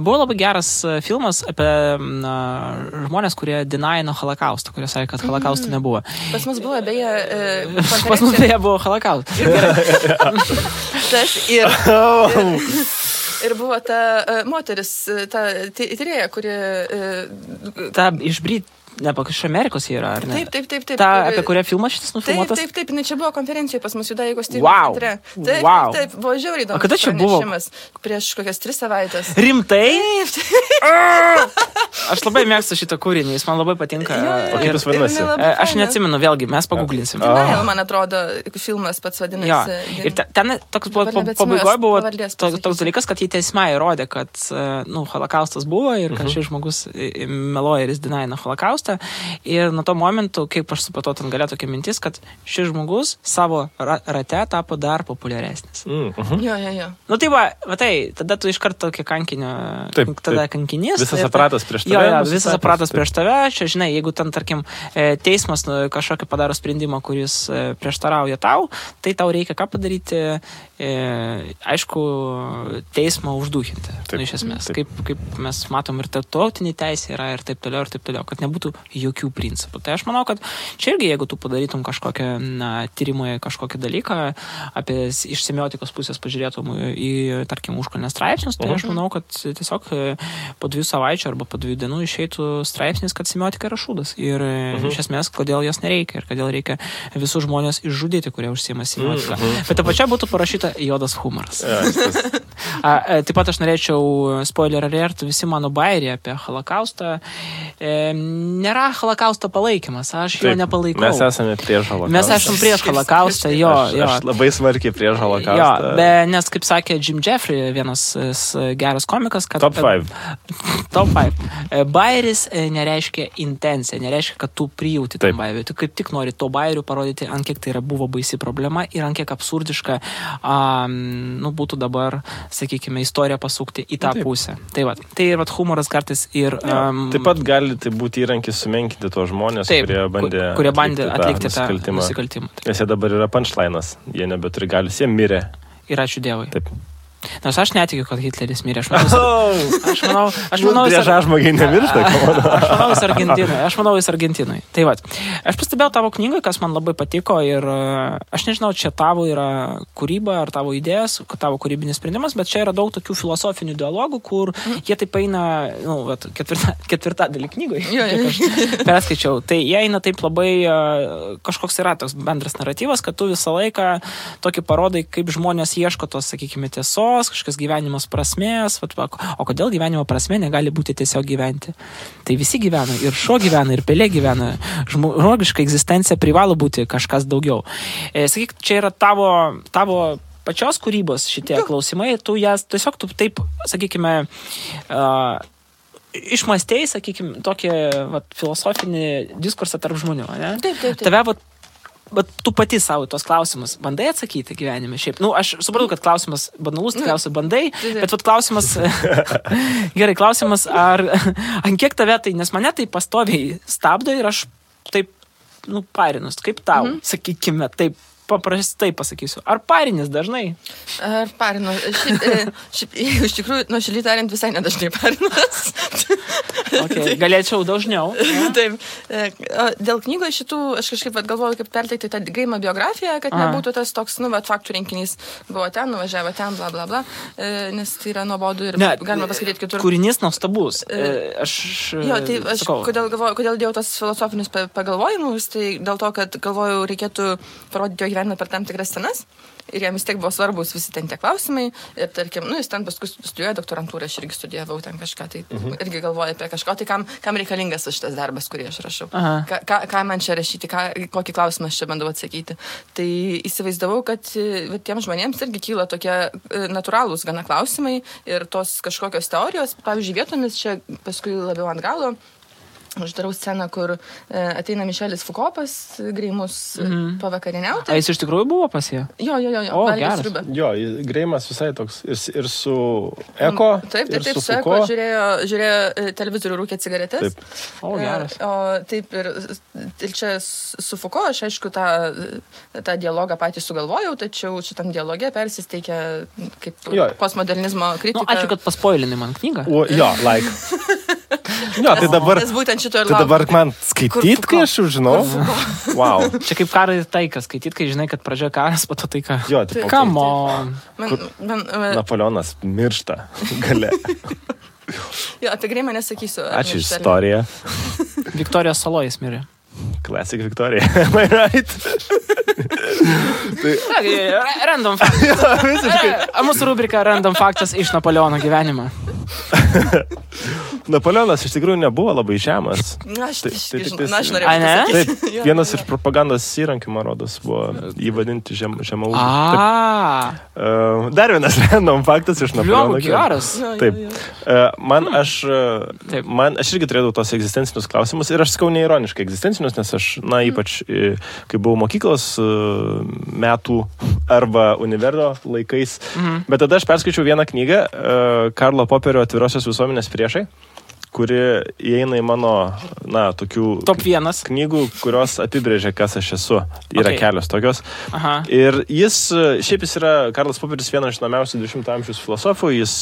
buvo labai geras filmas apie žmonės, kurie denaino holokaustą, kurie sakė, kad holokausto nebuvo. Pas mus buvo beje... Pas mus beje buvo holokaustas. Ir buvo ta moteris, ta tyrėja, kuri... Ta iš iš Amerikos yra, ar ne? Taip. Ta, apie kurią filmas šitas nufilmuotas? Taip, čia buvo konferencijoje pas mus Judaikos tyrimų centre. Taip, buvo žiauriai įdomus. O kada čia buvo? Prieš kokias 3 savaitės. Rimtai? Aš labai mėgstu šitą kūrinį, jis man labai patinka. O kaip jis vadinasi? Aš neatsimenu, vėlgi, mes paguglinsim. Man atrodo, filmas pats vadinasi. Ir ten toks pabaigoje buvo toks dalykas, kad jį teismai įrodė, kad holokaustas buvo ir kad šis žmogus meluoja ir jis denaina holokaustą. Ir nuo to momentu, kaip aš supratau, ten galėjo tokia mintis, kad šis žmogus savo rate tapo dar populiaresnis. Jo. Tada tu iš karto tokį kankinio, tada kankinys. Visas aparatas prieš tave. Visas aparatas prieš tave. Čia, žinai, jeigu ten, tarkim, teismas kažkokį padaro sprendimą, kuris prieštarauja tau, tai tau reikia ką padaryti, aišku, teismą užduhinti. Iš esmės. Kaip mes matom ir tarptautinė teisė yra ir taip toliau, kad nebūtų jokių principų. Tai aš manau, kad čia irgi, jeigu tu padarytum kažkokią tyrimą, kažkokį dalyką, iš semiotikos pusės pažiūrėtum į, tarkim, užkalnės straipsnius, tai aš manau, kad tiesiog po 2 savaičių arba po 2 dienų išeitų straipsnis, kad semiotika yra šūdas. Ir iš esmės, kodėl jos nereikia ir kodėl reikia visus žmonės išžudyti, kurie užsiima semiotiką. Bet ta pačia būtų parašyta juodas humoras. Taip pat aš norėčiau spoiler alert, visi mano bairiai apie holokaustą. Nėra holokausto palaikymas, aš jo nepalaikau. Mes esame prieš holokaustą. Mes esame prieš holokaustą, jo. Aš labai smarkiai prieš holokaustą. Nes, kaip sakė Jim Jeffrey, vienas geras komikas, kad... Top 5. Top 5. Bairis nereiškia intencija, nereiškia, kad tu prijauti tam bairiui. Tu kaip tik nori to bairių parodyti, ant kiek tai buvo baisi problema ir ant kiek absurdiška būtų dabar, sakykime, istoriją pasukti į tą pusę. Tai ir humoras kartais ir... Taip pat gali tai būti įrankis sumenkinti tuos žmonės, kurie bandė atlikti tą nusikaltimą. Nes jie dabar yra punchline'as, jie nebeturi galius, jie mirė. Ir ačiū Dievui. Taip. Nors aš netikiu, kad Hitleris mirė. Aš manau, žmogiai nemiršta. Aš manau, jis Argentinui. Tai va, aš pastebėjau tavo knygą, kas man labai patiko ir aš nežinau, čia tavo yra kūryba ar tavo idėjas, tavo kūrybinis sprendimas, bet čia yra daug tokių filosofinių dialogų, kur jie taip eina, ketvirtadalį knygoje. Aš perskaičiau. Tai jie eina taip labai, kažkoks yra toks bendras naratyvas, kad tu visą laiką tokį parodai, kaip žmonės ieško tos, sakykime, tiesos, kažkas gyvenimas prasmės, o kodėl gyvenimo prasmė negali būti tiesiog gyventi. Tai visi gyvena, ir šuo gyvena, ir pelė gyvena. Žmogiška egzistencija privalo būti kažkas daugiau. Sakyk, čia yra tavo pačios kūrybos šitie klausimai, tu taip, sakykime, išmastėjai, sakykime, tokį filosofinį diskursą tarp žmonių, ne? Taip. Tave, bet tu pati savo tos klausimus bandai atsakyti gyvenime šiaip. Aš supratau, kad klausimas banalus, tikriausiai bandai, bet klausimas, gerai, klausimas, ant kiek tave tai, nes mane tai pastoviai stabdo ir aš taip, parinus, kaip tau, sakykime, taip, paprastai pasakysiu. Ar parinis dažnai? Ar parinu? Šiaip, iš tikrųjų, nuoširdžiai tariant, visai nedažnai parinas. Okay, galėčiau dažniau. Taip. Dėl knygos šitų, aš kažkaip galvoju, kaip perteikti tą Greimo biografiją, kad nebūtų tas toks, faktų rinkinys. Buvo ten, nuvažiavo ten, bla, bla, bla. Nes tai yra nuobodu ir galima paskaityti kitur. Kūrinys nuostabus. Aš kodėl dėjau tas filosofinius pagalvojimus, tai dėl to, kad galvoju, reikėtų parodyti jo gyvenimą per tam tikras scenas. Ir jam vis tiek buvo svarbus visi ten tie klausimai. Ir tarkim, jis ten paskui studijuoja doktorantūrą, aš irgi studijavau ten kažką, tai irgi galvoju apie kažką, tai kam reikalingas šitas darbas, kurį aš rašau. Ką man čia rašyti, kokį klausimą aš čia bandau atsakyti. Tai įsivaizdavau, kad tiem žmonėms irgi kyla tokie natūralūs gana klausimai ir tos kažkokios teorijos, pavyzdžiui, vietomis čia paskui labiau ant galo. Aš darau sceną, kur ateina Mišelis Foucault pas Greimus pavakarieniauti. Jis iš tikrųjų buvo pas jį? Jo. O, geras. Jo, Greimas visai toks ir su Eko. Taip, su Eko žiūrėjo televizorių, rūkė cigaretės. Taip. O, geras. Taip, ir čia su Foucault aš aišku tą dialogą patį sugalvojau, tačiau šitam dialoge persisteikia kaip postmodernizmo kritika. Ačiū, kad paspoilinai man knygą. Jo, tai dabar man skaityt, kai aš jau žinau. Wow. Čia kaip karą ir taiką skaityt, kai žinai, kad pradžioje karas, po to taika. Jo, taip. Come on. Napoleonas miršta gale. Jo, apie Greimą nesakysiu. Ačiū istoriją. Viktorijos Salojas mirė. Classic Victoria. Am I right? Random faktas. Mūsų rubrika Random faktas iš Napoleono gyvenimo. Napoleonas iš tikrųjų nebuvo labai žemas. Aš norėjau pasakyti. Taip, vienas iš propagandos įrankių, man rodos, buvo įvadinti žemaūgį. Dar vienas random faktas iš Napoleono. Geras. Taip. Aš irgi turėjau tos egzistencinius klausimus ir aš sakau neironiškai egzistencinius, nes aš, ypač, kai buvau mokyklos metų arba univerdo laikais, bet tada aš perskaičiau vieną knygą Karlo Poperio Atvirosios visuomenės priešai, kuri įeina į mano, tokių top 1 knygų, kurios apibrėžia, kas aš esu. Yra kelios tokios. Ir šiaip jis yra, Karlas Poperis, vienas iš žinomiausių 20 amžiaus filosofų, jis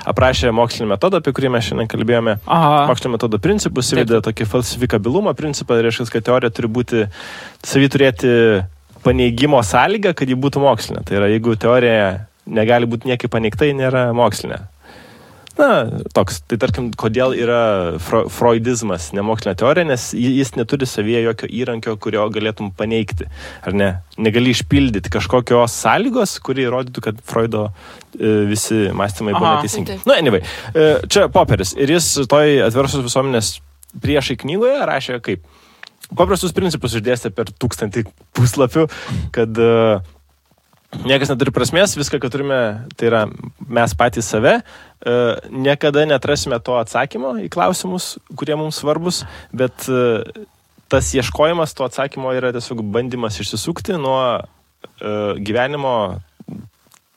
aprašė mokslinį metodą, apie kurį mes šiandien kalbėjome. Mokslinio metodo principus, įvedė tokį falsifikabilumo principą, reiškia, kad teorija turi būti, turėti paneigimo sąlygą, kad ji būtų mokslinė. Tai yra, jeigu teorija negali būti niekai paneigta, ji nėra mokslinė. Toks. Tai tarkim, kodėl yra freudizmas nemokslinė teorija, nes jis neturi savyje jokio įrankio, kurio galėtum paneigti. Ar ne? Negali išpildyti kažkokios sąlygos, kuri įrodytų, kad Freudo visi mąstymai buvo neteisingi. Anyway, čia Poperis. Ir jis toj Atvirosios visuomenės priešai knygoje rašė kaip paprastus principus išdėstė per 1000 puslapių, kad niekas neturi prasmės, viską, ką turime, tai yra mes patys save, niekada neatrasime to atsakymo į klausimus, kurie mums svarbus, bet tas ieškojimas to atsakymo yra tiesiog bandymas išsisukti nuo gyvenimo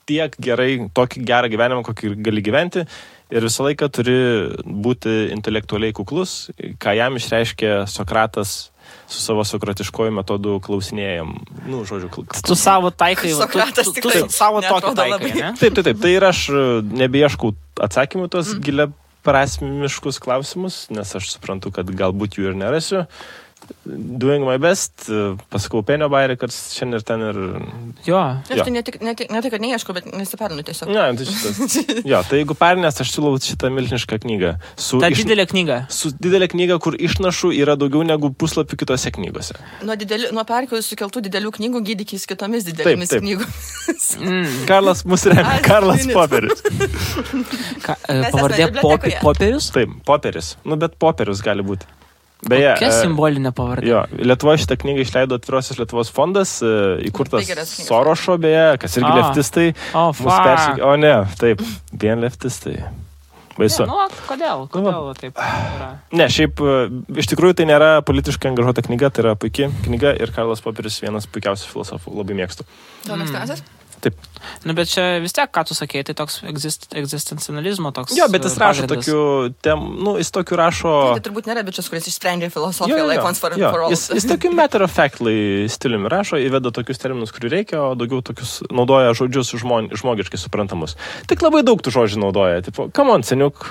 tiek gerai, tokį gerą gyvenimą, kokį gali gyventi, ir visą laiką turi būti intelektualiai kuklus, ką jam išreiškė Sokratas su savo sokratiškoju metodu klausinėjam. Nu, žodžiu, tu savo taikai, Sokratas tikrai savo tokį taikai, ne? Taip. Tai ir aš nebeieškau atsakymų tos gilia prasmiškus klausimus, nes aš suprantu, kad galbūt jų ir nerasiu. Doing my best, pasakau Penio bairį, kad šiandien ir ten ir... Jo. Aš tai ne tai, kad neieškau, bet nesiperinu tiesiog. Ne, tai šitas. Jo, tai jeigu perinės, aš siūlau šitą milžinišką knygą. Didelė knyga. Su didelė knyga, kur išnašų yra daugiau negu puslapių kitose knygose. Nuo perkelių sukeltų didelių knygų gydykis kitomis didelėmis knygomis. Karlas mus remia. Karlas Poperis. Pavardė Poperis? Taip, Poperis. Nu, bet Poperis gali būti. Beje, kokia simbolinė pavardė? Jo, Lietuvoje šitą knygą išleido Atvirosios Lietuvos fondas, įkurtas Sorošo, beje, kas irgi leftistai. O ne, taip, vien leftistai. Baisu. Ne, kodėl taip yra? Ne, šiaip, iš tikrųjų tai nėra politiškai angažuota knyga, tai yra puikia knyga ir Karlas Poperis vienas puikiausių filosofų, labai mėgstu. Tau mėgstamiausias? Taip. Nu, bet čia vis tiek, ką tu sakei, tai toks egzistencializmo toks. Jo, bet jis rašo tokių jis tokių rašo... Tai turbūt nėra bičias, kuris išsprendė filosofiją, like once for all. Jis tokių matter of factly stiliumi rašo, įveda tokius terminus, kurių reikia, o daugiau tokius naudoja žodžius žmogiškai suprantamus. Tik labai daug tų žodžių naudoja. Tipo, come on, seniuk.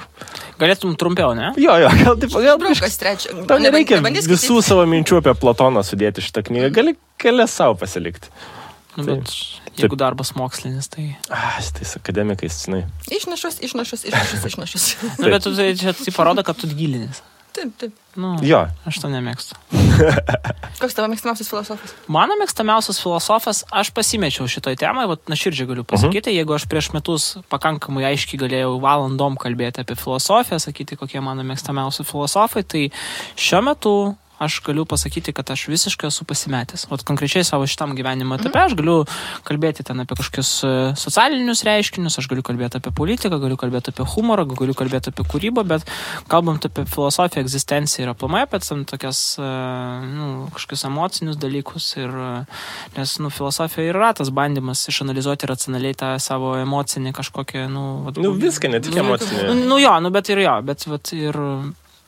Galėtum trumpiau, ne? Jo, gal tau nereikia visų savo minčių apie Platoną sudėti šitą knygą. Gali kelias savo pasilikti. Nu, bet jeigu darbas mokslinis, tai... Tais akademikais, žinai. Išnašus. Nu, bet tai parodo, kad tu gilinis. Taip. Nu, jo. Aš to nemėgstu. Koks tavo mėgstamiausias filosofas? Mano mėgstamiausias filosofas, aš pasimečiau šitoj temai, nuoširdžiai galiu pasakyti, jeigu aš prieš metus pakankamai aiškiai galėjau valandom kalbėti apie filosofiją, sakyti, kokie mano mėgstamiausi filosofai, tai šiuo metu aš galiu pasakyti, kad aš visiškai esu pasimetęs. O konkrečiai savo šitam gyvenimo etape aš galiu kalbėti ten apie kažkokius socialinius reiškinius, aš galiu kalbėti apie politiką, galiu kalbėti apie humorą, galiu kalbėti apie kūrybą, bet kalbant apie filosofiją, egzistenciją ir aplamai apie tokias kažkokius emocinius dalykus. Nes filosofija yra tas bandymas išanalizuoti racionaliai tą savo emocinį kažkokią... viską, ne tik emocinį. Bet ir...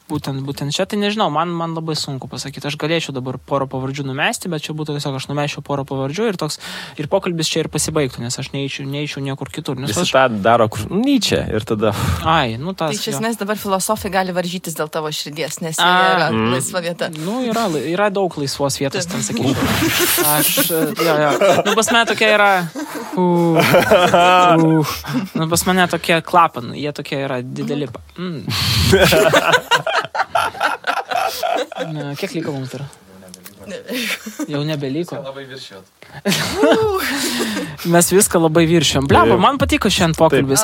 Būtent čia, tai nežinau, man labai sunku pasakyti. Aš galėčiau dabar porą pavardžių numesti, bet čia būtų tiesiog aš numesčiau porą pavardžių ir pokalbis čia ir pasibaigtų, nes aš neįčiau niekur kitur. Visi tą daro kur Nyčia ir tada... Tai iš esmės dabar filosofai gali varžytis dėl tavo širdies, nes yra laisva vieta. Yra daug laisvos vietos, ten sakyčiau. Pas mane tokia yra... Pas mane tokie klapanai, jie tokie yra dideli. Kiek liko mums dar? Jau nebeliko. Labai viršijot. Mes viską labai viršijom. Bleba, man patiko šiandien pokalbis.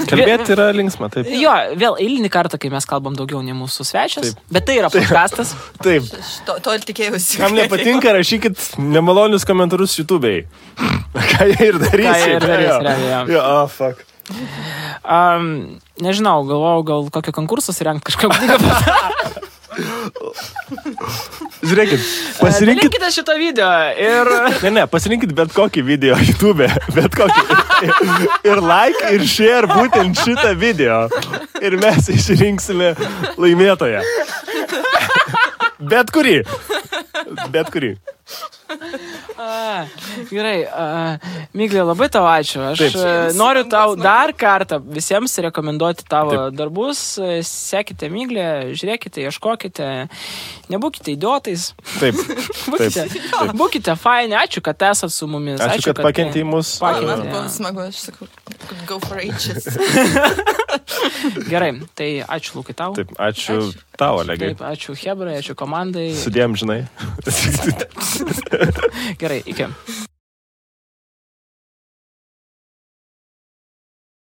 Kalbėti yra linksma, taip. Jo, vėl eilinį kartą, kai mes kalbam daugiau nei mūsų svečias. Bet tai yra podcastas. Taip. To ir tikėjausi. Kam nepatinka, rašykit nemalonius komentarus YouTube'ai. Ką jie ir darys. Fuck. Nežinau, galvojau, gal kokio konkursus rengt kažką knygą. Žiūrėkit, pasirinkit... Dalinkite šitą video ir... Ne, pasirinkit bet kokį video YouTube, bet kokį. Ir like, ir share būtent šitą video. Ir mes išrinksime laimėtoją. Bet kurį. Gerai, Miglė, labai tau ačiū. Aš noriu tau dar kartą visiems rekomenduoti tavo darbus. Sekite Miglę, žiūrėkite, ieškokite, nebūkite idiotais. Taip. Būkite faini, ačiū, kad esat su mumis. Ačiū, kad pakentė į mus. Man buvo smagu, aš sakau, go for ages. Gerai, tai ačiū, Lukai, tau. Taip, ačiū tau, Olegai. Taip, ačiū Hebrai, ačiū komandai. Sudėjom, žinai. Gerai, iki.